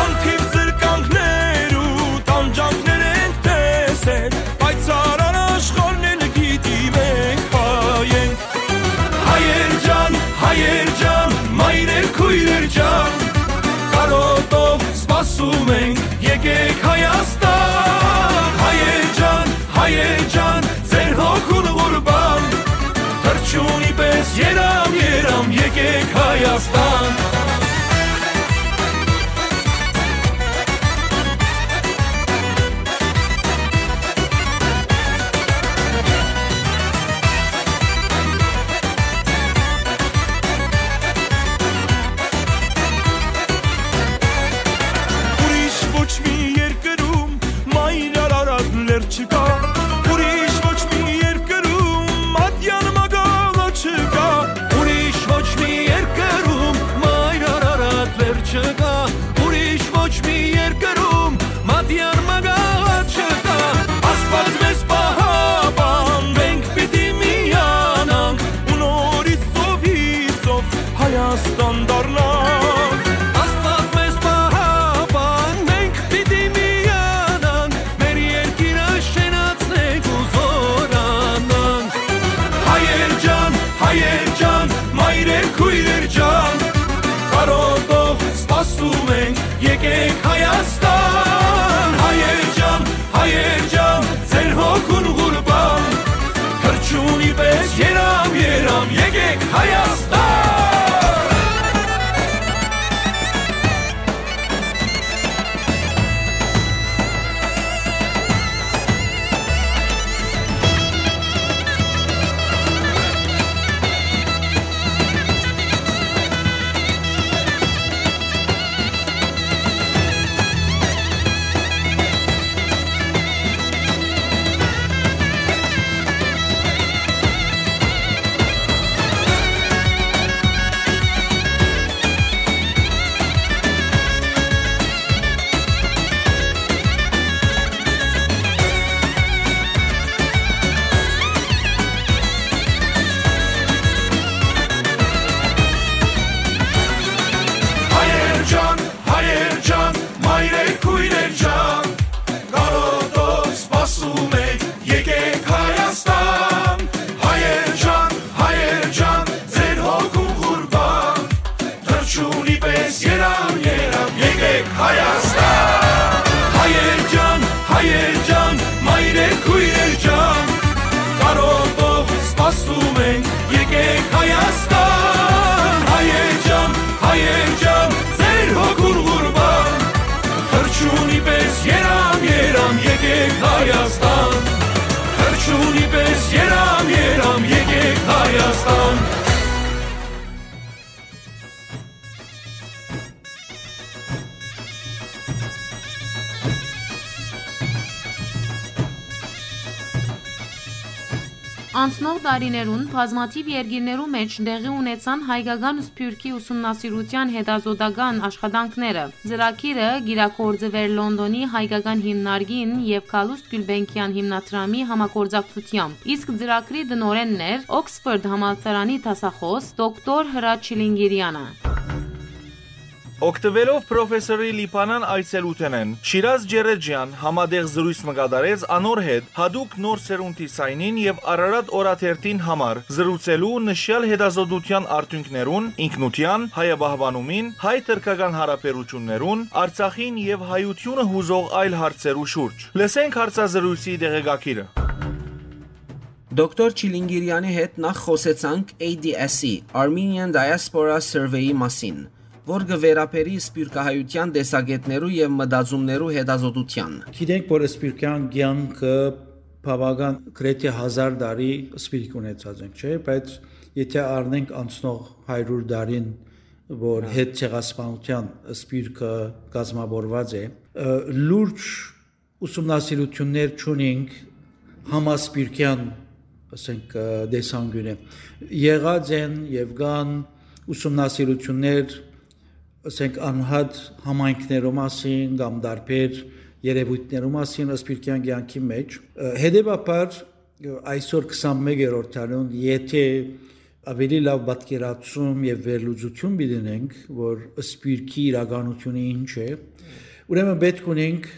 Անթիվ զրկանքներու տանջանքներ ենք տեսել, բայց արար աշխարհն էլ գիտի մենք հայ ենք։ Հայեր ջան, հայեր ջան, մայրեր, քույրեր ջան, կարոտով սպասում ենք, եկեք Հայաստան։ Հայեր ջան, հայեր ջան, ձեր հոգուն ղուրբան, թռչունի պես երամ, երամ, եկեք Հայաստան։ Ուրիշ ոչ մի երկրում մայր Արարատ լեռ չկա, ուրիշ ոչ մի երկրում մատյան մագաղը չկա, ուրիշ ոչ մի երկրում մայր Արարատ լեռ չկա, ուրիշ ոչ մի երկրում մատյան մագաղը չկա։ Աստված մեզ պահապան, մենք պիտի միանանք ու նորից սովից սով Հայաստան դառնանք։ Աստված մեզ պահապան, մենք պիտի միանանք, մեր երկիրը շենացնենք ու զօրանանք։ Հայեր ջան, հայեր ջան, մայրեր, քույրեր ջան, Ասում ենք, եկեք Հայաստան, հայեր ջան, հայեր ջան, ձեր հոգուն ղուրբան, թռչունի պես երամ, երամ, եկեք Հայաստան։ Հայեր ջան, հայեր ջան, մայրեր, քույրեր ջան, կարոտով սպասում ենք, եկեք Հայաստան։ Հայեր ջան, հայեր ջան, ձեր հոգուն ղուրբան, թռչունի պես երամ, երամ, եկեք Հայաստան։ Հայեր ջան, հայեր ջան, մայրեր, քույրեր ջան, կարոտով սպասում ենք, եկեք Հայաստան։ Հայեր ջան, հայեր ջան, ձեր հոգուն ղուրբան, թռչունի պես երամ, երամ, եկեք Հայաստան։ Թռչունի պես երամ, երամ, եկեք Հայաստան։ Անցնող տարիներուն բազմաթիւ երկիրներու մէջ տեղի ունեցան հայկական սփիւռքի ուսումնասիրութեան հետազօտական աշխատանքները։ Ծրագիրը կիրագործուէր Լոնդոնի հայկական հիմնարկին եւ Գալուստ Գիւլբենկեան հիմնադրամի համագործակցութեամբ, իսկ ծրագրի տնօրէնն էր Օքսֆորդ համալսարանի դասախօս դոկտոր Հրաչ Չիլինգիրյանը։ Օգտուելով պրոֆեսորի Լիբանան այցելութենէն, Շիրազ Ջերեջեան համատեղ զրոյց մը կատարեց անոր հետ յատուկ նոր սերունդի սայնին եւ Արարատ օրաթերթին համար զրուցելու նշեալ հետազոտութեան արդիւնքներուն, ինքնութեան, հայապահպանումին, հայ-թրքական հարաբերութիւններուն, Արցախին եւ հայութիւնը յուզող այլ հարցերու շուրջ։ Լսենք հարցազրոյցի տեղեկագիրը։ Դոկտոր Չիլինգիրյանի հետ նախ խօսեցանք A D S-ի, Armenian Diaspora Survey-ի մասին, որ կը վերաբերի սփիւռքահայութեան տեսակէտներու եւ մտածումներու հետազոտութեան։ Գիտենք, որ սփիւռքեան կեանքը բաւական գրեթէ հազար տարի սփիւռք ունեցած ենք, չէ՞, բայց եթէ առնենք անցնող հարիւր տարին, որ Հա։ Հետցեղասպանութեան սփիւռքը կազմաւորուած է, ը, լուրջ ուսումնասիրութիւններ չունենք համասփիւռքեան, ասենք, ը, տեսանկիւնը։ Եղած են եւ կան ուսումնասիրութիւններ, ասենք, անհատ համայնքներու մասին կամ տարբեր երեւոյթներու մասին սփիւռքեան կեանքի մէջ։ Ը, հետեւաբար, ը, այսօր քսանմեկերորդ դարուն, եթէ ավելի լաւ պատկերացում եւ վերլուծութիւն պիտի ունենք, որ սփիւռքի իրականութիւնը ինչ է, ուրեմն պէտք ունենք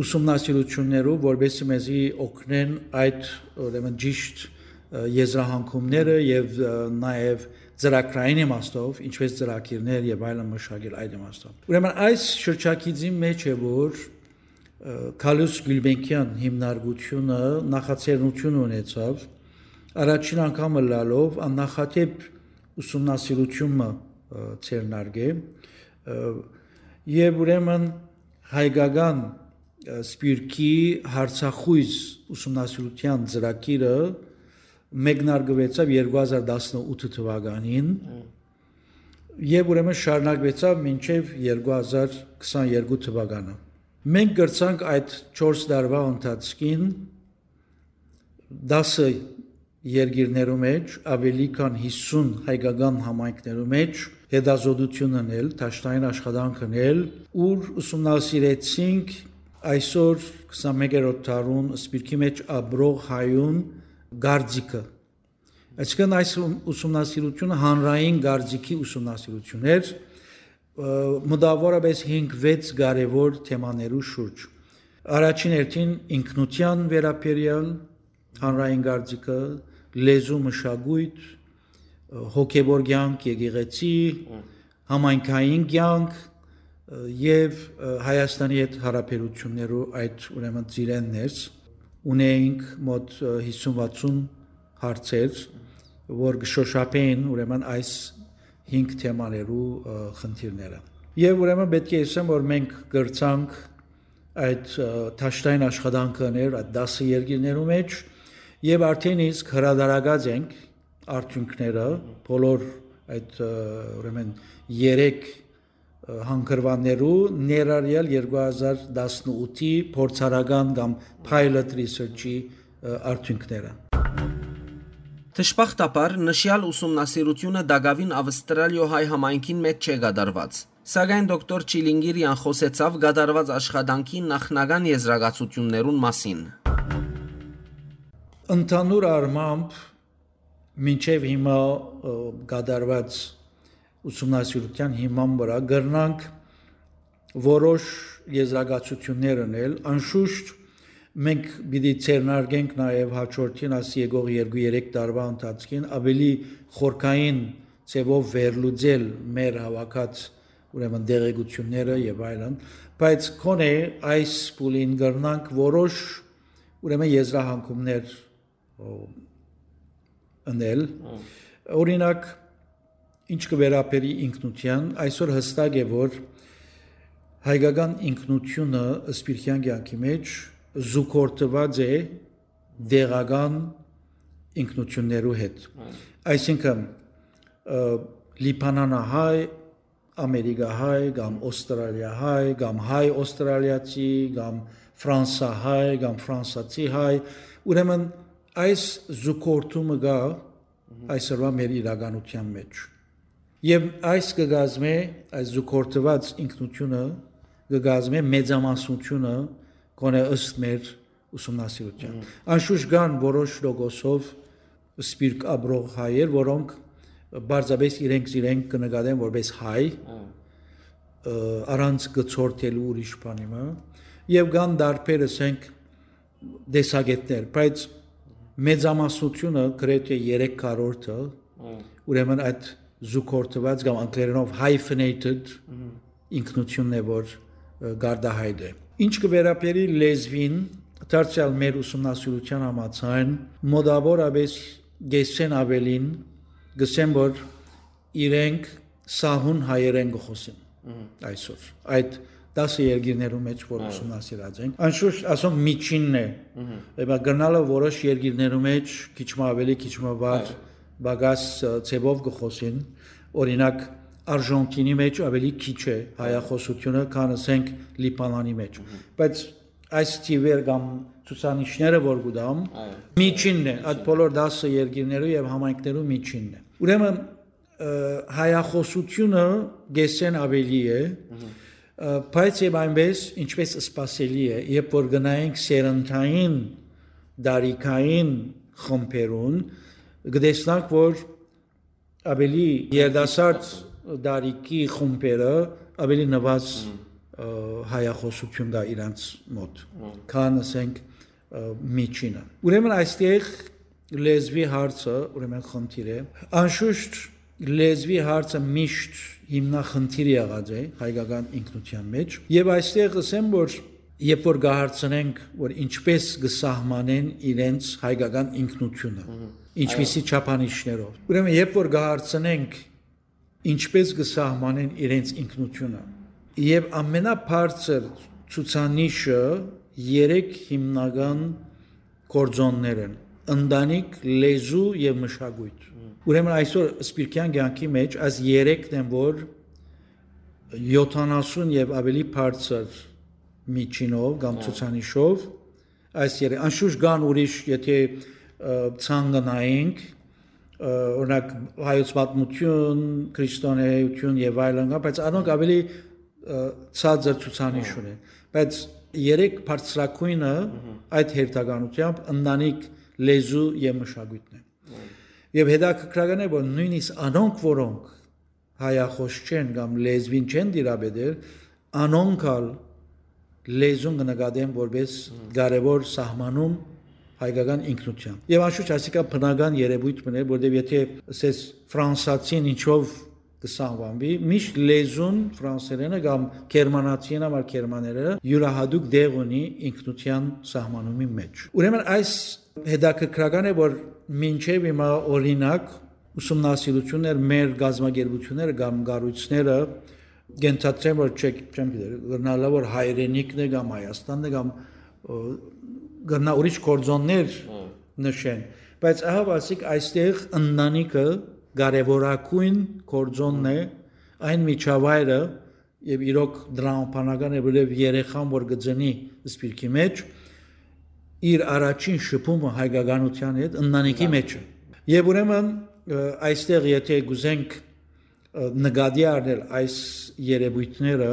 ուսումնասիրութիւններով, որպեսզի մեզի օգնեն այդ, ուրեմն, ճիշտ, ը, եզրահանգումները եւ, ը, նաեւ ծրագրային իմաստով, ինչպես ծրագիրներ եւ այլն մշակել այդ իմաստով։ Ուրեմն այս շրջագիծին մէջ է, որ, ը, Գալուստ Գիւլբենկեան հիմնարկութիւնը նախաձեռնութիւն ունեցաւ, առաջին անգամ ըլլալով աննախադէպ ուսումնասիրութիւն մը, ը, ձեռնարկել, ը, եւ ուրեմն հայկական, ը, սփիւռքի հարցախոյզ ուսումնասիրութեան ծրագիրը մեկնարկուեցաւ երկու հազար տասնութ թուականին Մմ։ եւ ուրեմն շարունակուեցաւ մինչեւ երկու հազար քսաներկու թուականը։ Մենք կրցանք այդ չորս տարուայ ընթացքին տասը երկիրներու մէջ, ավելի քան հիսուն հայկական համայնքներու մէջ հետազոտութիւն ընել, դաշտային աշխատանք ընել, ուր ուսումնասիրեցինք այսօր քսանմեկերորդ դարուն սփիւռքի մէջ ապրող հայուն կարծիքը։ Այսինքն այս ուսումնասիրութիւնը հանրային կարծիքի ուսումնասիրութիւն էր, ը, մտավորապես հինգ-վեց կարեւոր թեմաներու շուրջ։ Առաջին հերթին ինքնութեան վերաբերեալ, հանրային կարծիքը, լեզու, մշակոյթ, ը, հոգեվոր կեանք, եկեղեցի, Մմ։ համայնքային կեանք, ը, եւ, ը, Հայաստանի հետ յարաբերութիւններու այդ, ուրեմն, ծիրէն ներս ունէինք մոտ, ը, հիսուն վաթսուն հարցեր, որ կը շոշափէին, ուրեմն, այս հինգ թեմաներու, ը, խնդիրները։ Եւ, ուրեմն, պէտք է ըսեմ, որ մենք կրցանք այդ, ը, դաշտային աշխատանքը ընել այդ տասը երկիրներու մէջ, եւ արդեն իսկ հրադարակած ենք արդիւնքները, բոլոր այդ, ը, ուրեմն, երեք, ը, հանգրուաններու, ներառյալ երկու հազար տասնութի փորձարական կամ pilot research-ի, ը, արդիւնքները։ Դժբախտաբար, նշեալ ուսումնասիրութիւնը տակաւին Ավստրալիոյ հայ համայնքին մէջ չէ կատարուած։ Սակայն դոկտոր Չիլինգիրեան խօսեցաւ կատարուած աշխատանքի նախնական եզրակացութիւններուն մասին։ Ընդհանուր առմամբ, մինչեւ հիմա, ը, կատարուած ուսումնասիրութեան հիման վրայ կրնանք որոշ եզրակացութիւններ ընել։ Անշուշտ, մենք պիտի ձեռնարկենք նաեւ հաջորդին, աս եկող երկու-երեք տարուա ընթացքին, աւելի խորքային ձեւով վերլուծել մեր հաւաքած, ուրեմն, տեղեկութիւնները եւ այլն, բայց քոնէ այս փուլին կրնանք որոշ, ուրեմն, եզրահանգումներ, ո, ընել։ Հմ։ Օրինակ, ինչ կը վերաբերի ինքնութեան, այսօր յստակ է, որ հայկական ինքնութիւնը սփիռքեան կեանքի մէջ զուգորդուած է տեղական ինքնութիւններու հետ։ Հմ։ Այսինքն, ը, լիբանանահայ, ամերիկահայ կամ օստրալիահայ կամ հայ օստրալիացի կամ ֆրանսահայ կամ ֆրանսացի հայ, ուրեմն, այս զուգորդումը կայ այսօրուայ մեր իրականութեան մէջ։ Եւ այս կը կազմէ, այս զուգորդուած ինքնութիւնը կը կազմէ մեծամասնութիւնը, գոնե ըստ մեր ուսումնասիրութեան։ Մհմ։ Անշուշտ կան որոշ տոկոսով սփիռք ապրող հայեր, որոնք պարզապէս իրենք զիրենք կը նկատեն որպես հայ, Մհմ։ ը, առանց կցորդելու ուրիշ բանի մը, եւ կան տարբեր, ասենք, տեսակէտներ, բայց մեծամասնութիւնը, գրեթէ երեք քառորդը, Մհմ։ ուրեմն, այդ զուգորդուած կամ անգլերենով hyphenated Մհմ։ ինքնութիւնն է, որ, ը, կարտահայտէ։ Ինչ կը վերաբերի լեզուին, դարձեալ մեր ուսումնասիրութեան համաձայն, մոտավորապէս կէսէն աւելին կ'ըսեն, որ իրենք սահուն հայերէն կը խօսին Մհմ։ այսօր։ Այդ տասը երկիրներու մէջ, որ Այո։ ուսումնասիրած ենք, անշուշտ, ասոնք, միջինն է։ Մհմ։ Եպա կրնալը որոշ երկիրներու մէջ քիչ մը աւելի, քիչ մը վար, Այո։ պակաս, ը, ձեւով կը խօսին։ Օրինակ, Արժանտինի մէջ աւելի քիչ է հայախօսութիւնը, քան, ասենք, Լիբանանի մէջ։ Մհմ։ Բայց այս թիվեր կամ ցուցանիշները, որ կու տամ, Այո։ միջինն է, այդ Միջին։ բոլոր տասը երկիրներու եւ համայնքներու միջինն է։ Ուրեմն, ը, հայախօսութիւնը կէսէն աւելի է, Մհմ։ ը, բայց եւ այնպես, ինչպես սպասելի է, երբ որ գնայինք սերնդային, տարիքային խմբերուն, կտեսնանք, որ աւելի երիտասարդ տարիքի խումբերը աւելի նուազ, Մհմ։ ը, հայախօսութիւն կայ իրանց մօտ, Մհմ։ քան, ասենք, ը, միջինը։ Ուրեմն, այստեղ լեզուի հարցը, ուրեմն, խնդիր է։ Անշուշտ, լեզուի հարցը միշտ հիմնախնդիր եղած է հայկական ինքնութեան մէջ, եւ այստեղ ըսեմ, որ երբ որ կը հարցնենք, որ ինչպես կը սահմանեն իրենց հայկական ինքնութիւնը, Մհմ։ ինչպիսի Այո։ չափանիշներով։ Ուրեմն, երբ որ կը հարցնենք, ինչպես կը սահմանեն իրենց ինքնութիւնը, եւ ամենաբարձր ցուցանիշը երեք հիմնական գործոններ են. ընտանիք, լեզու եւ մշակոյթ։ Մհմ։ Ուրեմն, այսօր սփիռքեան կեանքի մէջ այս երեքն են, որ յոթանասուն եւ աւելի բարձր միջինով կամ Հա։ ցուցանիշով այս երեք, անշուշտ կան ուրիշ, եթե, ը, ցանկանայինք, ը, օրինակ, հայոց պատմութիւն, քրիստոնէայութիւն եւ այլն կան, բայց անոնք աւելի, ը, ցածր ցուցանիշ Հա։ ունեն։ Բայց երեք բարձրագոյնը Մհմ։ այդ հերթականութեամբ ընտանիք, լեզու եւ մշակոյթն է։ Մհմ։ Եւ հետաքրքրական է, որ նոյնիսկ անոնք, որոնք հայախոս չեն կամ լեզուին չեն տիրապետեր, անոնք ալ լեզուն կը նկատեն որպես Մհմ։ կարեւոր սահմանում հայկական ինքնութեան։ Եվ անշուշտ ասիկա բնական երևույթ մն է, որտեղ եթե ասես ֆրանսացին ինչով կը սահմանուի, միշտ լեզուն ֆրանսերէնը կամ գերմանացիին համար գերմաներէնը յուրահատուկ տեղ ունի ինքնութեան սահմանումի մէջ։ Ուրեմն այս հետաքրքրական է, որ մինչեւ հիմա, օրինակ, ուսումնասիրութիւններ մեր կազմակերպութիւնները կամ կառոյցները կ'ընթացեն, որ չեք, չեմ գիտեր, կրնալա որ հայրենիքն է կամ Հայաստանն է կամ, ը, կրնա ուրիշ գործոններ Հմ։ նշեն, բայց ահա ասիկ այստեղ ընտանիքը կարեւորագույն գործոնն է, այն միջավայրը, եւ իրոք տրամաբանական է, որովհետեւ երեխան որ կը ծնի սպիրկի մէջ, իր առաջին շփումը հայկականութեան հետ ընտանիքի Հա։ մեջ է։ Եւ ուրեմն, ը, այստեղ եթե կուզենք, ը, նկատի առնել այս երևույթները,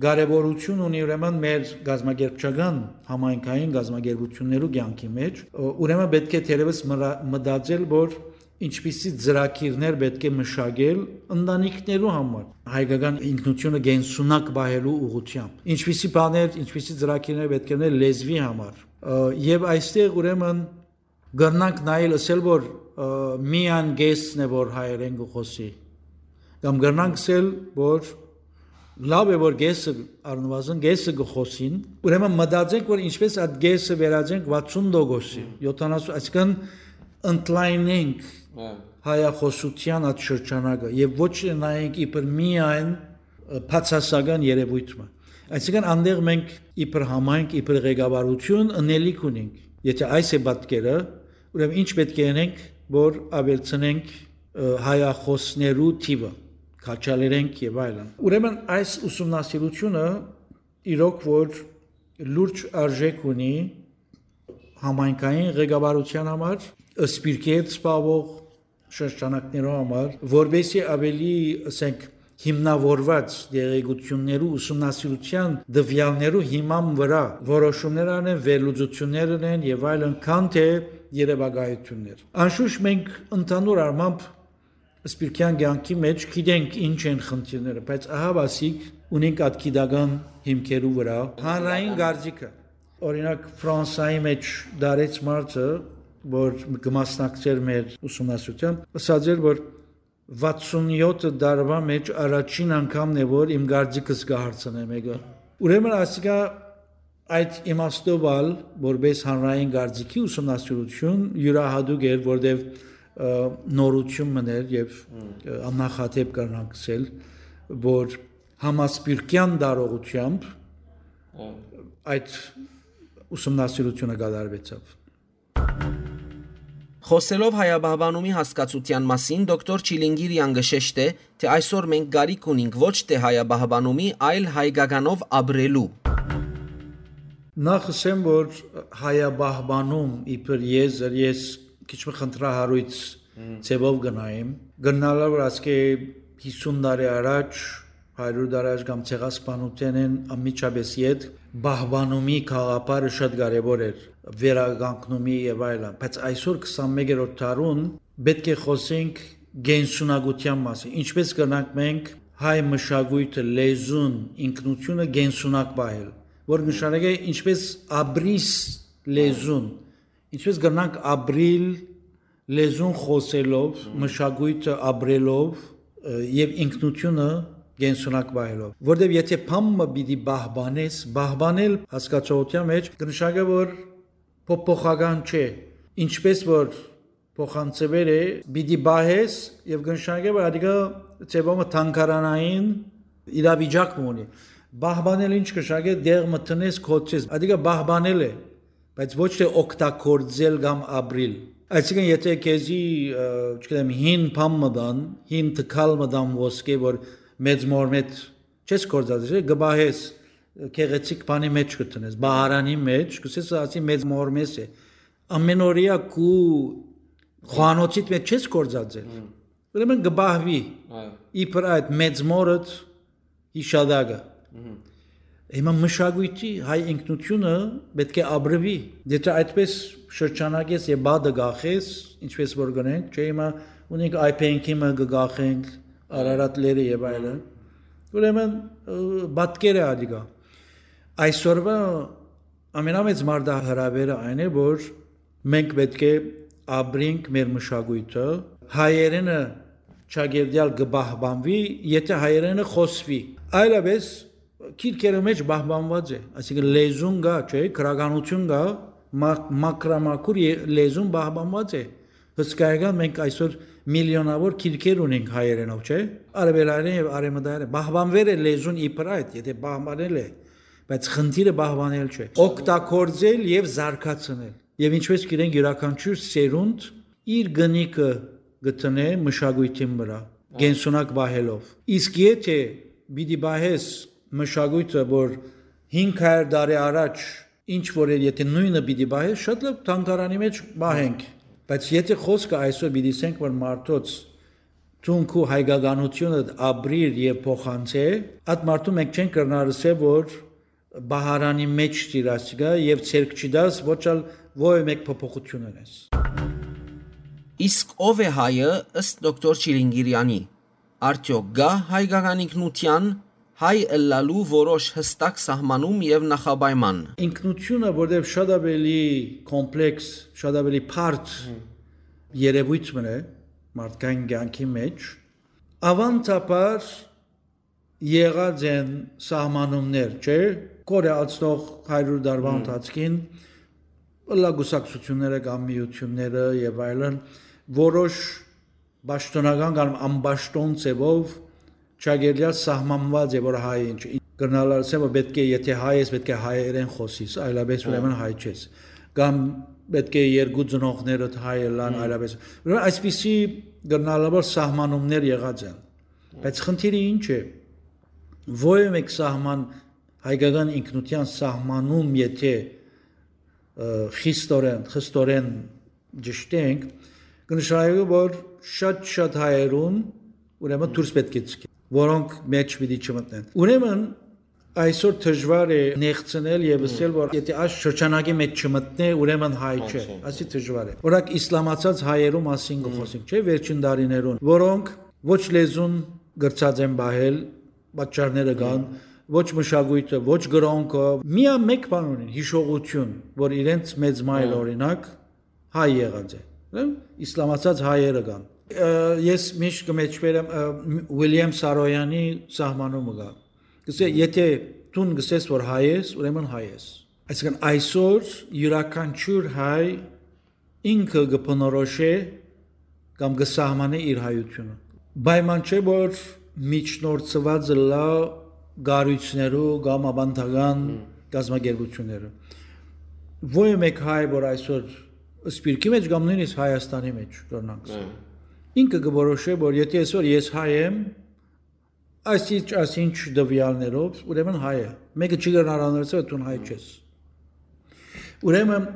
կարեւորություն ունի ուրեմն մեր կազմակերպչական համայնքային կազմակերպություններու կեանքի մեջ, ը, ուրեմն պէտք է թերեւս մրա-, մտածել, որ ինչպիսի ծրագիրներ պէտք է մշակել ընտանիքներու համար, հայկական ինքնութիւնը կենսունակ պահելու ուղղութեամբ, ինչպիսի բաներ, ինչպիսի ծրագիրներ պէտք է ունենալ լեզուի համար։ Ը, եւ այստեղ ուրեմն կրնանք նայել, ըսել, որ, ը, միայն կեսն է, որ հայերեն կը խօսի, կամ կրնանք ըսել, որ լաւ է, որ կեսը, առնուազն կեսը կը խօսին, ուրեմն մտածենք, որ ինչպես այդ կեսը վերածենք վաթսուն տոկոսի, Հմ։ յոթանասուն, այսինքն ընդլայնենք Հա։ հայախօսութեան այդ շրջանակը եւ ոչ թե նայենք իբր միայն, ը, բացասական երևույթ մը։ Այսինքն, անդեղ մենք իբր համայնք, իբր ղեկավարություն ընելիք ունենք։ Եթե այս է պատկերը, ուրեմն ինչ պէտք է ընենք, որ աւելցնենք, ը, հայախօսներու թիվը, քաջալերենք եւ այլն։ Ուրեմն այս ուսումնասիրութիւնը իրոք որ լուրջ արժէք ունի համայնքային ղեկավարութեան համար, սպիրկի հետ զբաղվող շրջանակներու համար, որպեսզի ավելի, ասենք, հիմնավորված տեղեկություններու ուսումնասիրութեան տվեալներու հիման վրայ որոշումներ անեն, վերլուծություններ անեն եւ այլն, քան թե երևակայություններ։ Անշուշտ մենք ընդհանուր առմամբ սպիրկեան կեանքի մեջ գիտենք ինչ են խնդիրները, բայց ահա ասիկ ունենք այդ գիտական հիմքերու վրա հանրային կարծիքը։ Օրինակ, Ֆրանսայի մեջ դարեց մարդը, որ կը մասնակցէր մեր ուսումնասիրութեան, ըսած էր, որ վաթսուն յոթ տարուա մեջ առաջին անգամն է, որ իմ կարծիքս կը հարցնէ մէկը։ Ուրեմն ասիկա այդ իմաստով ալ, որպես հանրային կարծիքի ուսումնասիրութիւն, յուրահատուկ էր, որտեւ, ը, նորութիւն մըն էր եւ, Հմ։ ը, աննախադէպ կրնանք ըսել, որ համասպիրկեան տարողութեամբ Հմ։ այդ ուսումնասիրութիւնը կատարուեցաւ։ Խոսելով հայապահպանումի հասկացութեան մասին, դոկտոր Չիլինգիրիան կը շեշտէ, թէ այսօր մենք կարիք ունինք ոչ թէ հայապահպանումի, այլ հայկականով ապրելու։ Նախ ըսեմ, որ հայապահպանում իբր եզր, ես քիչ մը խնդրահարույց Հմ։ ձևով կը նայեմ։ Կրնալա որ ասկէ հիսուն տարի առաջ, հարիւր տարի առաջ կամ ցեղասպանութենէն անմիջապէս յետ պահպանումի գաղափարը շատ կարեւոր էր, վերականգնումի եւ այլն, բայց այսօր քսանմեկերորդ դարուն պէտք է խօսենք կենսունակութեան մասին, ինչպես կրնանք մենք հայ մշակոյթը, լեզուն, ինքնութիւնը կենսունակ պահել, որ նշանակէ ինչպես ապրիս լեզուն, ինչպես կրնանք ապրիլ լեզուն խօսելով, Հմ։ մշակոյթը ապրելով, ը, եւ ինքնութիւնը կենսունակ պահելով։ Որտեւ եթե բան մը պիտի պահպանես, պահպանել հասկացողութեան մեջ կնշանակէ, որ փոփոխական չէ, ինչպես որ փոխանցուեր է, պիտի պահես եւ կնշանակէ, որ ադիկա ձևով մը թանգարանային իրավիճակ մը ունի։ Պահպանել ինչ կնշանակէ, դեղ մը տնես, կոչես, ադիկա պահպանել է, բայց ոչ թե օգտագործել կամ ապրիլ։ Այսինքն, եթե քեզի, ը, չգիտեմ, հին բան մը տան, հին տկալ մը տան ոսկէ, որ մեծ մորմետ չես գործածել, կը պահես, գեղեցիկ բանի մեջ կը տնես, բահարանի մեջ, կսես, ասի, մեծ մորմես է։ Ամենօրեայ քու խոհանոցիդ մեջ չես գործածել։ Հմ։ Ուրեմն կը պահուի Այո։ իբր այդ մեծ մորդ յիշատակը։ Մհմ։ Հիմա մշակույթի հայ ինքնությունը պէտք է ապրուի։ Եթե այդպես շրջանակես եւ բադը գախես, ինչպես որ գնենք, չէ, հիմա ունենք այ փենքի մը կը գախենք, Արարատ լերը եւ այլն, ուրեմն, ը, պատկեր է ադիկա։ Այսօրվա ամենամեծ մարտահրավերը այն է, որ մենք պէտք է ապրենք մեր մշակույթը, հայերենը չակերտեալ կը պահպանուի, եթէ հայերէնը խօսուի։ Այլապէս քիրքերու մէջ պահպանուած է, այսինքն՝ լեզուն կայ, չէ՞, գրականութիւն կայ, մա-, մաքրամաքուր ե-, լեզուն պահպանուած է։ Հսկայական, մենք այսօր միլիոնաւոր քիրքեր ունենք հայերէնով, չէ՞, արեւելայերէն եւ արեւմտայերէն։ Պահպանուեր է լեզուն իբր այդ, եթէ պահպանել է, բայց խնդիրը պահպանել չէ, օգտագործել եւ զարգացնել։ Եւ ինչպես գիտենք, իւրաքանչիւր սերունդ իր կնիքը կը դնէ մշակոյթին վրայ, կենսունակ պահելով։ Իսկ եթէ պիտի պահես մշակոյթը, որ հինգ հարիւր տարի առաջ ինչ որ էր, եթէ նոյնը պիտի պահես, շատ լավ, թանգարանի մէջ պահենք։ Բայց եթէ խօսքը այսօր պիտի ասենք, որ մարդոց դուն քու հայկականութիւնը ապրիր եւ փոխանցե, այդ մարդուն մենք չենք կրնար ըսել, որ պահարանի մէջ տիր ասիկա եւ ձեռք չի տաս, ոչ ալ ովեւէ մէկ փոփոխություն ունես։ Իսկ ո՞վ է հայը, ըստ դոկտոր Չիլինգիրյանի։ Արդեօք կա հայկական ինքնության, հայ ըլլալու որոշ յստակ սահմանում եւ նախապայման։ Ինքնությունը, որտեղ շատ ավելի կոմպլեքս, շատ ավելի բարդ երևույթ մը է մարդկային կյանքի մէջ, ավանդաբար եղած են սահմանումներ, չէ՞, կորեացնող հարիւր տարուա Մմ։ ընթացքին, ըլլայ կուսակցությունները կամ միությունները եւ այլն, որոշ պաշտոնական կամ անպաշտոն ձևով չակերտեալ սահմանուած է, որ հայ ինչ։ Կրնալ ասեմ, որ պէտք է, եթէ հայ ես, պէտք է հայերէն խօսիս, այլապէս Հա։ ուրեմն հայ չես։ Կամ պէտք է երկու ծնողներդ հայ ըլլան, Հմ։ այլապէս։ Ուրեմն այսպիսի կրնալավոր սահմանումներ եղած են։ Բայց խնդիրը ինչ է։ Ովեւէ մէկ սահման, հայկական ինքնության սահմանում, եթէ, ը, խիստորեն, խստորեն ճշտենք, կը նշանակէ, որ շատ-շատ հայերուն ուրեմն դուրս պէտք է ցկի, որոնք մէջ պիտի չմտնեն։ Ուրեմն այսօր դժուար է նեղցնել եւ Հմ։ ասել, որ եթէ այս շրջանակի մէջ չմտնէ, ուրեմն հայ Հայ չէ, չէ։ Ասի դժուար է։ Օրինակ, իսլամացած հայերու մասին կը Հմ։ խոսենք, չէ՞, վերջին տարիներուն, որոնք ոչ լեզուն կրցած են պահել, պատճառները կան, Հմ։ ոչ մշակոյթը, ոչ կրօնքը, միայն մէկ բան ունին, յիշողություն, որ իրենց մեծ մայր, Հմ։ օրինակ, հայ եղած է, հա? Իսլամացած հայերը կան։ Ը, ես միշտ կը մեջբերեմ, ը, Ուիլյամ Սարոյանի սահմանումը կայ։ Կսե, Հմ։ եթէ դուն կսես, որ հայ ես, ուրեմն հայ ես։ Այսինքն այսօր իւրաքանչիւր հայ ինքը կը բնորոշէ կամ կը սահմանէ իր հայութիւնը։ Պայման չէ, որ միջնորդուած ըլլայ կառոյցներու կամ աւանդական Հմ։ կազմակերպութիւններու։ Ովեւէ մէկ հայ, որ այսօր Սփիւռքի մէջ կամ նոյնիսկ Հայաստանի մէջ, կրնանք Հմ։ ինքը կը որոշէ, որ եթէ այսօր ես հայ եմ, այսինչ, այսինչ տվեալներով, ուրեմն հայ է։ Մեկը չի կրնար անորսը, դուն հայ չես։ Ուրեմն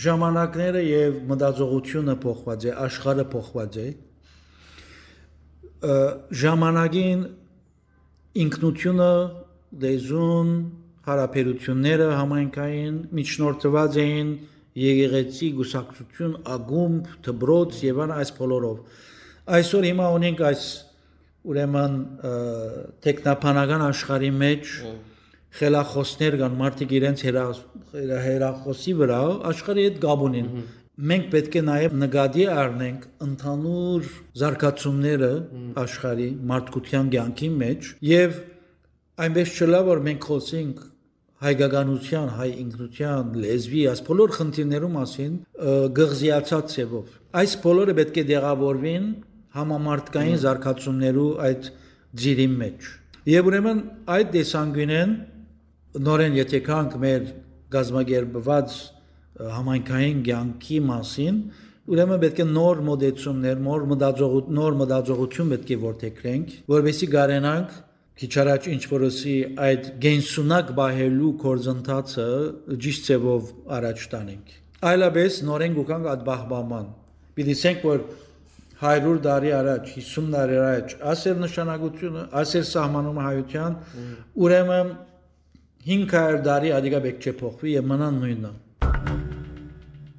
ժամանակները եւ մտածողությունը փոխված է, աշխարհը փոխված է։ Ը, ժամանակին ինքնությունը, լեզուն, հարաբերությունները համայնքային միջնորդված էին եկեղեցի, կուսակցություն, ակումբ, դպրոց եւ այլն, այս բոլորով։ Այսօր հիմա ունենք այս, ուրեմն, ը, տեխնաբանական աշխարհի մէջ Հմ։ խելախոսներ կան, մարդիկ իրենց հեռա-, հեռա-, հեռախոսի վրայ աշխարհի հետ կապ ունին։ Մհմ։ Մենք պէտք է նաեւ նկատի առնենք ընդհանուր զարգացումները Մհմ։ աշխարհի մարդկության կյանքի մէջ եւ այնպես չըլլայ, որ մենք խօսենք հայկականության, հայ ինքնության, լեզուի, այս բոլոր խնդիրներու մասին, ը, գղզիացած ձևով։ Այս բոլորը պէտք է տեղավորվին համամարտկային Մհմ։ զարգացումներու այդ ծիրին մէջ։ Եւ ուրեմն այդ տեսանկիւնէն նորէն եթէ գանք մեր կազմակերպուած, ը, համայնքային կյանքի մասին, ուրեմն պէտք է նոր մոտեցումներ, նոր մտածողութ-, նոր մտածողութիւն պէտք է որդեգրենք, որպեսզի կարենանք քիչ առաջ ինչ որ ըսի այդ կենսունակ պահելու գործընթացը ճիշտ ձևով առաջ տանենք։ Այլապէս նորէն կուքանք այդ պահպանման։ Պիտի ասենք, որ հարիւր տարի առաջ, հիսուն տարի առաջ, ասեր նշանակությունը, ասեր սահմանումը հայության, Մհմ։ ուրեմն հինգ հարիւր տարի ադիկա պէտք չէ փոխուի եւ մնան նոյնը։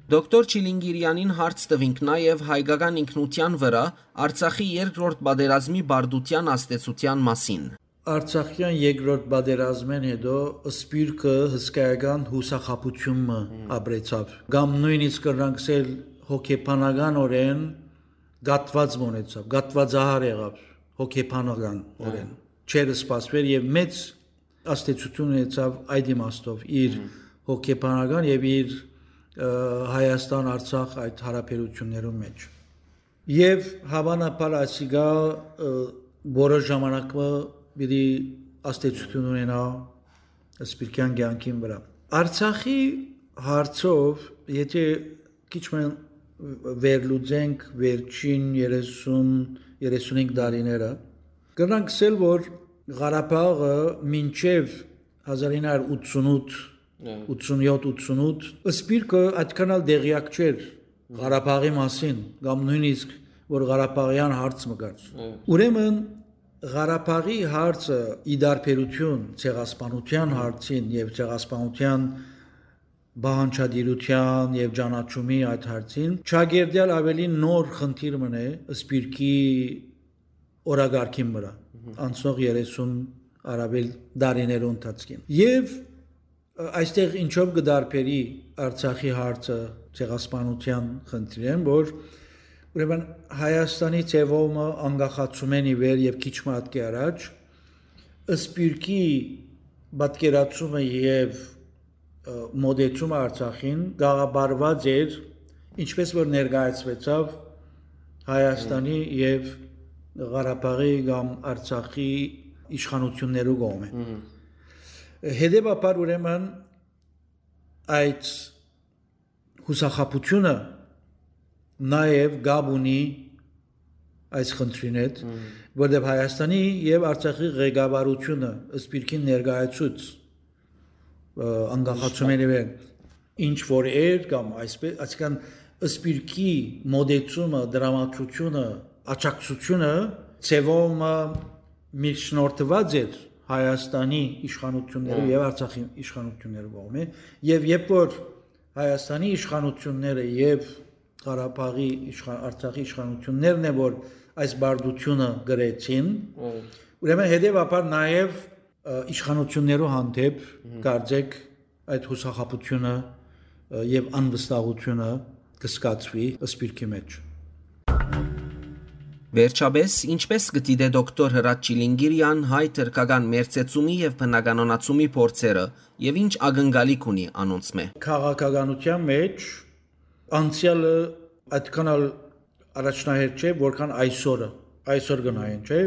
Դոկտոր Չիլինգիրյանին հարց տուինք նաեւ հայկական ինքնության վրայ Արցախի երկրորդ պատերազմի բարդության ազդեցության մասին։ Արցախեան երկրորդ պատերազմէն հետո Սփիւռքը հսկայական յուսախաբութիւն մը Մհմ։ ապրեցաւ, կամ նոյնիսկ կրնանք ասել հոգեբանականօրէն կատված մը ունեցաւ, կատվածահար եղաւ հոգեբանական օրէն։ Չէր սպասուեր եւ մեծ ազդեցութիւն ունեցաւ այդ իմաստով իր հոգեբանական եւ իր, ը, Հայաստան-Արցախ այդ հարաբերություններուն մէջ։ Եւ հաւանաբար ասիկա, ը, որոշ ժամանակ մը պիտի ազդեցութիւն ունենայ սպիրկեան կեանքին վրայ։ Արցախի հարցով, եթե քիչ մը վերլուծենք վերջին երեսուն, երեսունհինգ տարիները, կրնանք ասել, որ Ղարաբաղը մինչեւ հազար ինը հարյուր ութսունութ, Հա։ ութսունյոթ, ութսունութ, սպիրկը այդքան ալ տեղյակ չէր Ղարաբաղի մասին, կամ նոյնիսկ որ ղարաբաղեան հարց մը կար։ Հա։ Ուրեմն Ղարաբաղի հարցը, ի տարբերություն Ցեղասպանութեան հարցին եւ Ցեղասպանութեան պահանջատիրութեան եւ ճանաչումի այդ հարցին, չակերտեալ ավելի նոր խնդիր մը է սպիրկի օրակարգին վրայ, անցնող երեսուն առավել տարիներու ընթացքին։ Եւ, ը, այստեղ ինչով կը տարբերի Արցախի հարցը Ցեղասպանութեան խնդիրէն, որ ուրեմն Հայաստանի ձեւով մը անկախացումէն ի վեր եւ քիչ մը ատկի առաջ, սպիրկի պատկերացումը եւ, ը, մոտեցումը Արցախին գաղափարված էր, ինչպես որ ներկայացուեցաւ Հայաստանի եւ Ղարաբաղի կամ Արցախի իշխանություններու կողմէ։ Մհմ։ Հետեւաբար, ուրեմն, այդ յուսախաբութիւնը նաեւ կապ ունի այս խնդրին հետ, Մհմ։ որտեղ Հայաստանի եւ Արցախի ղեկավարությունը սպիրկին ներկայացուց, ը, անկախացումէն ի վեր, ինչ որ էր, կամ այսպես, այսինքն, սպիրկի մոտեցումը, դրամատրությունը, աջակցությունը ձևով մը միջնորդված էր Հայաստանի իշխանություններու Հա։ եւ Արցախի իշխանություններու կողմէ, եւ երբ որ Հայաստանի իշխանությունները եւ Ղարաբաղի իշխան-, Արցախի իշխանություններն է, որ այս բարդությունը գրեցին, Հա։ ուրեմն հետեւաբար նաեւ, ը, իշխանություններու հանդեպ Մհմ։ կարծեք այդ յուսախաբութիւնը, ը, եւ անվստահութիւնը կը զգացուի սպիրկի մէջ։ Վերջապէս, ինչպէս կը դիտէ դոկտոր Հրաչ Չիլինգիրեան հայ-թրքական մերձեցումի եւ բնականոնացումի փորձերը եւ ինչ ակնկալիք ունի անոնցմէ։ Քաղաքականութեան մէջ անցեալը այդքան ալ առաջնահերթ չէ, որքան այսօրը։ Այսօր կը նայեն, չէ՞։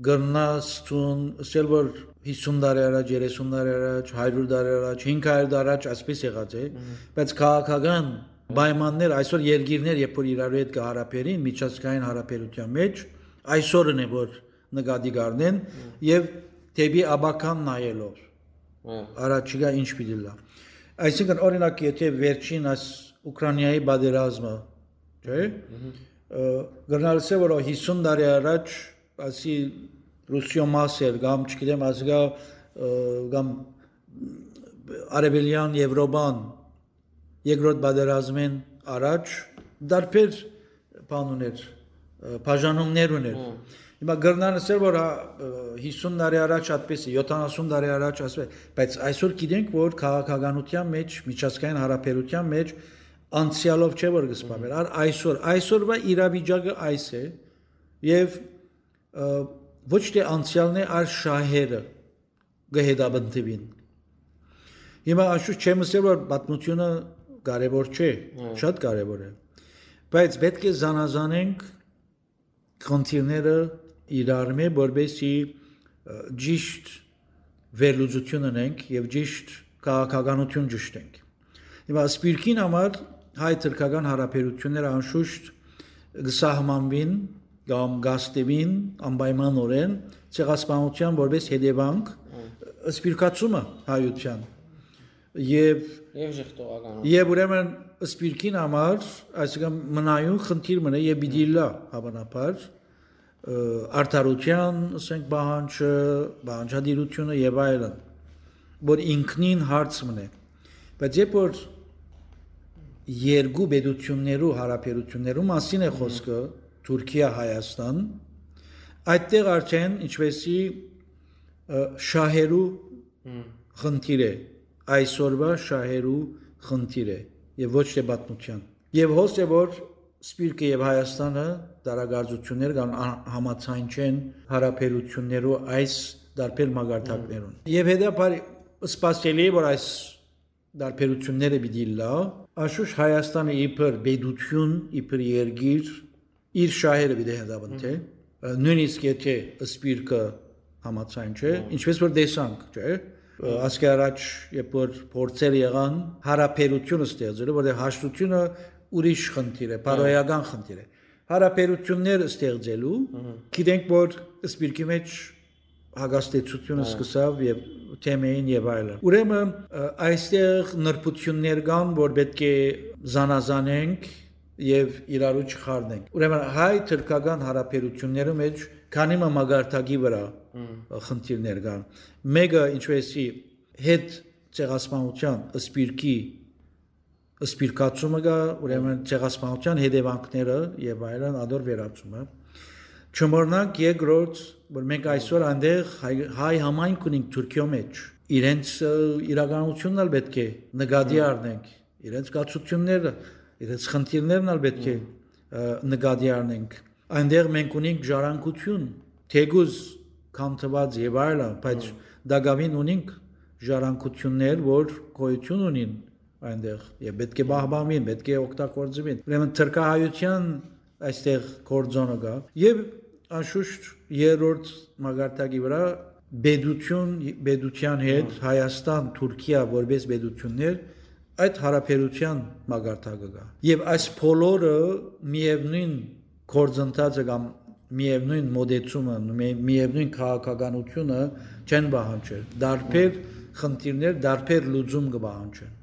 Կրնաս ցուն ասել, որ հիսուն տարի առաջ, երեսուն տարի առաջ, հարիւր տարի առաջ, հինգ հարիւր տարի առաջ այսպես եղած է, Մհմ։ բայց քաղաքական պայմաններ, այսօր երկիրներ, երբ որ իրարու հետ կը հարաբերին, միջազգային հարաբերութեան մէջ, այսօրն է, որ նկատի կ'առնեն Մհմ։ եւ դէպի ապագան նայելով, Մհմ։ առաջիկա ինչ պիտի լա։ Այսինքն, օրինակ, եթե վերջին այս Ուկրաինայի պատերազմը, չէ՞, Մհմ։ ը, կրնար ասել, որ հիսուն տարի առաջ, ասի, Ռուսիոյ մաս էր, կամ, չգիտեմ, ասիկա, ը, կամ Արևելյան Եվրոպան երկրորդ պատերազմէն առաջ տարբեր բան ուներ, ը, բաժանումներ ուներ։ Հմ։ Հիմա կրնան ասել, որ, հա, ը, հիսուն տարի առաջ այդպես է, յոթանասուն տարի առաջ այսպես, բայց այսօր գիտենք, որ քաղաքականության մեջ, միջազգային հարաբերության մեջ անցյալով չէ, որ կսպառվեր, Հմ։ այլ այսօր, այսօրվա իրավիճակը այս է, եւ, ը, ոչ թե անցյալն է, այլ շահերը կը հետապնդուին։ Հիմա, անշուշտ, չեմ ըսել, որ պատմությունը կարեւոր չէ, Հմ։ շատ կարեւոր է, բայց պէտք է զանազանենք խնդիրները իրարմէ, որպեսզի, ը, ճիշտ վերլուծություն ունենք եւ ճիշտ քաղաքականություն ճշտենք։ Հիմա սպիրկին համար հայ-թրքական հարաբերությունները, անշուշտ, կը սահմանուին կամ կաստուին անպայմանօրէն Ցեղասպանության որպես հետեւանք, Հմ։ սպիրկացումը հայության եւ Եւ ժխտողականություն։ Եւ ուրեմն սպիրկին համար, այսինքն, մնայուն խնդիր մնա եւ պիտի լա, հաւանաբար, ը, արդարության, ասենք, պահանջը, պահանջատիրությունը եւ այլն, որ ինքնին հարց մնա։ Բայց երբ որ երկու պետություններու հարաբերություններու մասին է Մհմ։ խոսքը, Թուրքիա, Հայաստան, այդտեղ արդեն, ինչպեսի, ը, շահերու Մհմ։ խնդիր է, այսօրվա շահերու խնդիր է եւ ոչ թե պատմության։ Եւ հոս է, որ Սփիւռքը եւ Հայաստանը տարակարծութիւններ կան ա-, համաձայն չեն յարաբերութիւններու այս տարբեր մակարդակներուն։ Հմ։ Եւ հետաբար սպասելի է, որ այս տարբերութիւնները պիտի լա, անշուշտ Հայաստանը իբր պետութիւն, իբր երկիր, իր շահերը պիտի հետապնդէ, Մհմ։ նոյնիսկ եթե սփիւռքը համաձայն չէ, Մհմ։ ինչպես որ տեսանք, չէ՞, Մհմ։ ասկի առաջ, երբ որ փորձեր եղան յարաբերութիւն ստեղծելու, որտեղ հաշտությունը ուրիշ խնդիր է, Մհմ։ բարոյական խնդիր է։ Յարաբերութիւններ ստեղծելու, Մհմ։ գիտենք, որ սփիւռքի մեջ հակաստեցութիւնը Հա։ սկսաւ եւ թեմեին եւ այլն։ Ուրեմն, ը, այստեղ նրբութիւններ կան, որ պէտք է զանազանենք եւ իրարու չխառնենք։ Ուրեմն հայ-թրքական յարաբերութիւններու մեջ քանի մը մակարդակի վրայ, Հմ։ ը, խնդիրներ կան։ Մէկը, ինչպեսի, հետ ցեղասպանութեան, սփիւռքի սփիւռքացումը կայ, ուրեմն ցեղասպանութեան հետեւանքները եւ այլն, ադոր վերացումը։ Չմոռնանք երկրորդ, որ մենք այսօր այնտեղ հայ, հայ համայնք ունենք Թուրքիոյ մեջ։ Իրենց, ը, իրականությունն ալ պէտք է նկատի Հմ։ առնենք, իրենց կացութիւնները, իրենց խնդիրներն ալ պէտք է, Հմ։ ը, նկատի առնենք։ Այնտեղ մենք ունենք ժառանգութիւն, թէկուզ քանդուած եւ այլն, բայց Հմ։ տակաւին ունենք ժառանգութիւններ, որ գոյութիւն ունին այնտեղ եւ պէտք է Հմ։ պահպանուին, պէտք է օգտագործուին։ Ուրեմն թրքահայութեան այստեղ գործոնը կայ։ Եւ անշուշտ երրորդ մակարդակի վրայ պետութիւն, պետութեան հետ Հմ։ Հայաստան, Թուրքիա որպես պետութիւններ, այդ յարաբերութեան մակարդակը կայ։ Եւ այս բոլորը միեւնոյն գործընթացը կամ միեւնոյն մոտեցումը, մի-, միեւնոյն քաղաքականությունը չեն պահանջեր։ Տարբեր խնդիրներ, տարբեր լուծում կը պահանջեն։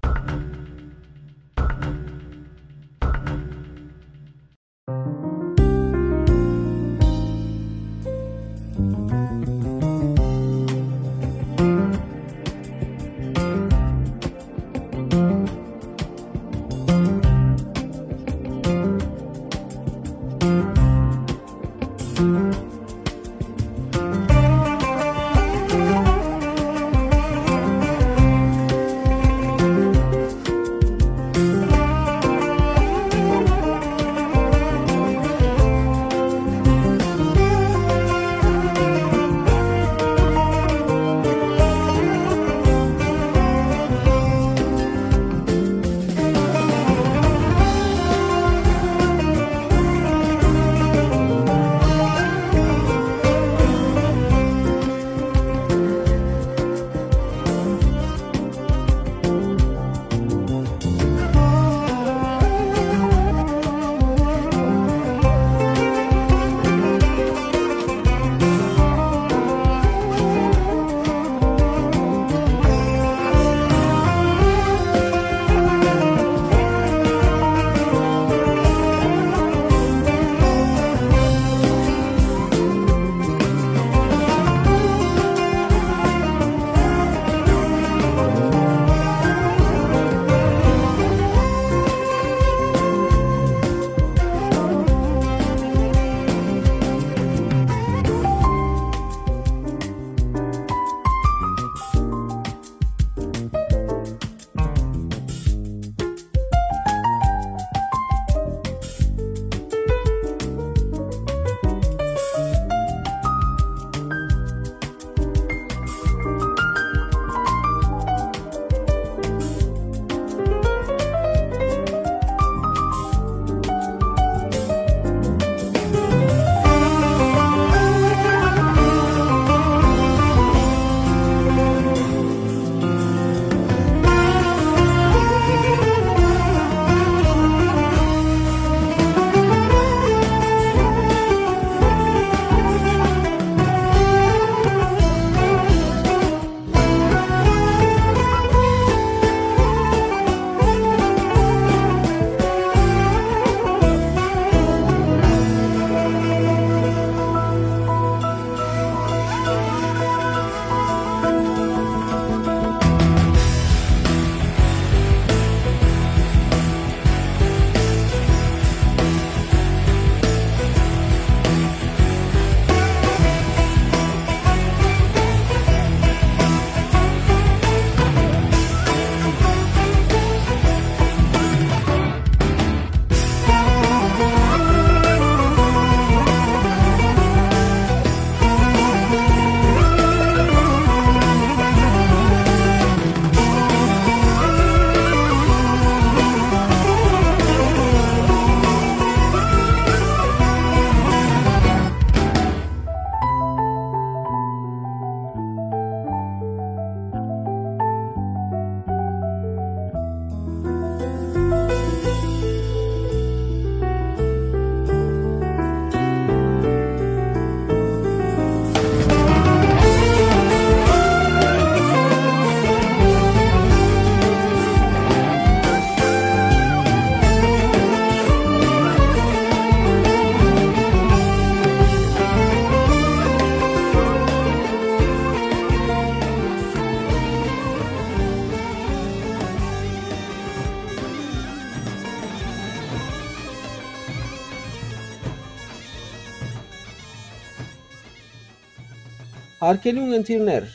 Հարգելի ունգընտիրներ,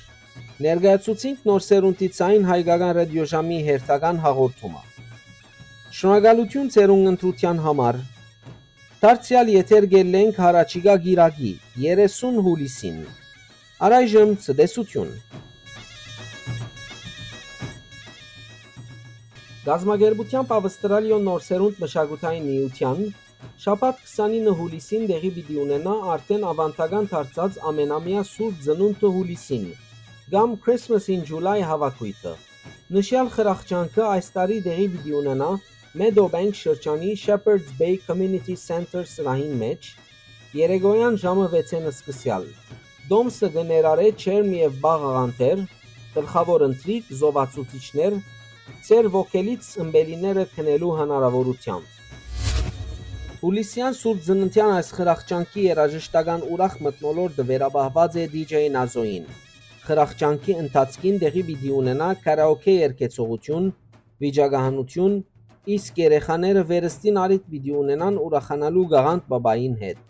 ներկայացուցինք Նոր Սերունդի Ձայնը հայկական ռատիոժամի հերթական հաղորդումը։ Շնորհակալութիւն ձեր ունգընտրութեան համար։ Դարձեալ եթեր կ'ելլենք յառաջիկայ կիրակի, երեսուն յուլիսին։ Առայժմ ցտեսութիւն։ Կազմակերպութեամբ Ավստրալիոյ Նոր Սերունդ մշակութային միութեան շաբաթ քսանինը յուլիսին տեղի պիտի ունենայ արդէն աւանդական դարձած ամենամեայ Սուրբ Ծնունդը յուլիսին կամ Christmas in July հավաքոյթը։ Նշեալ խրախճանքը այս տարի տեղի պիտի ունենայ Meadowbank շրջանի Shepherd's Bay Community Center սրահին մէջ, երեկոյեան ժամը վեցէն սկսեալ։ Տոմսը կը ներառէ ջերմ եւ պաղ աղանդեր, գլխաւոր ընթրիք, զովացուցիչներ, ձեր ոգելից ըմպելիները քնելու հնարաւորութեամբ։ Յուլիսեան Սուրբ Ծննդեան այս խրախճանքի երաժշտական ուրախ մթնոլորտը վերապահուած է D J Nazo-ին։ Խրախճանքի ընթացքին տեղի պիտի ունենայ քարաոքէ երգեցողութիւն, վիճակահանութիւն, իսկ երեխաները վերստին առիթ պիտի ունենան ուրախանալու Գաղանդ Պապային հետ։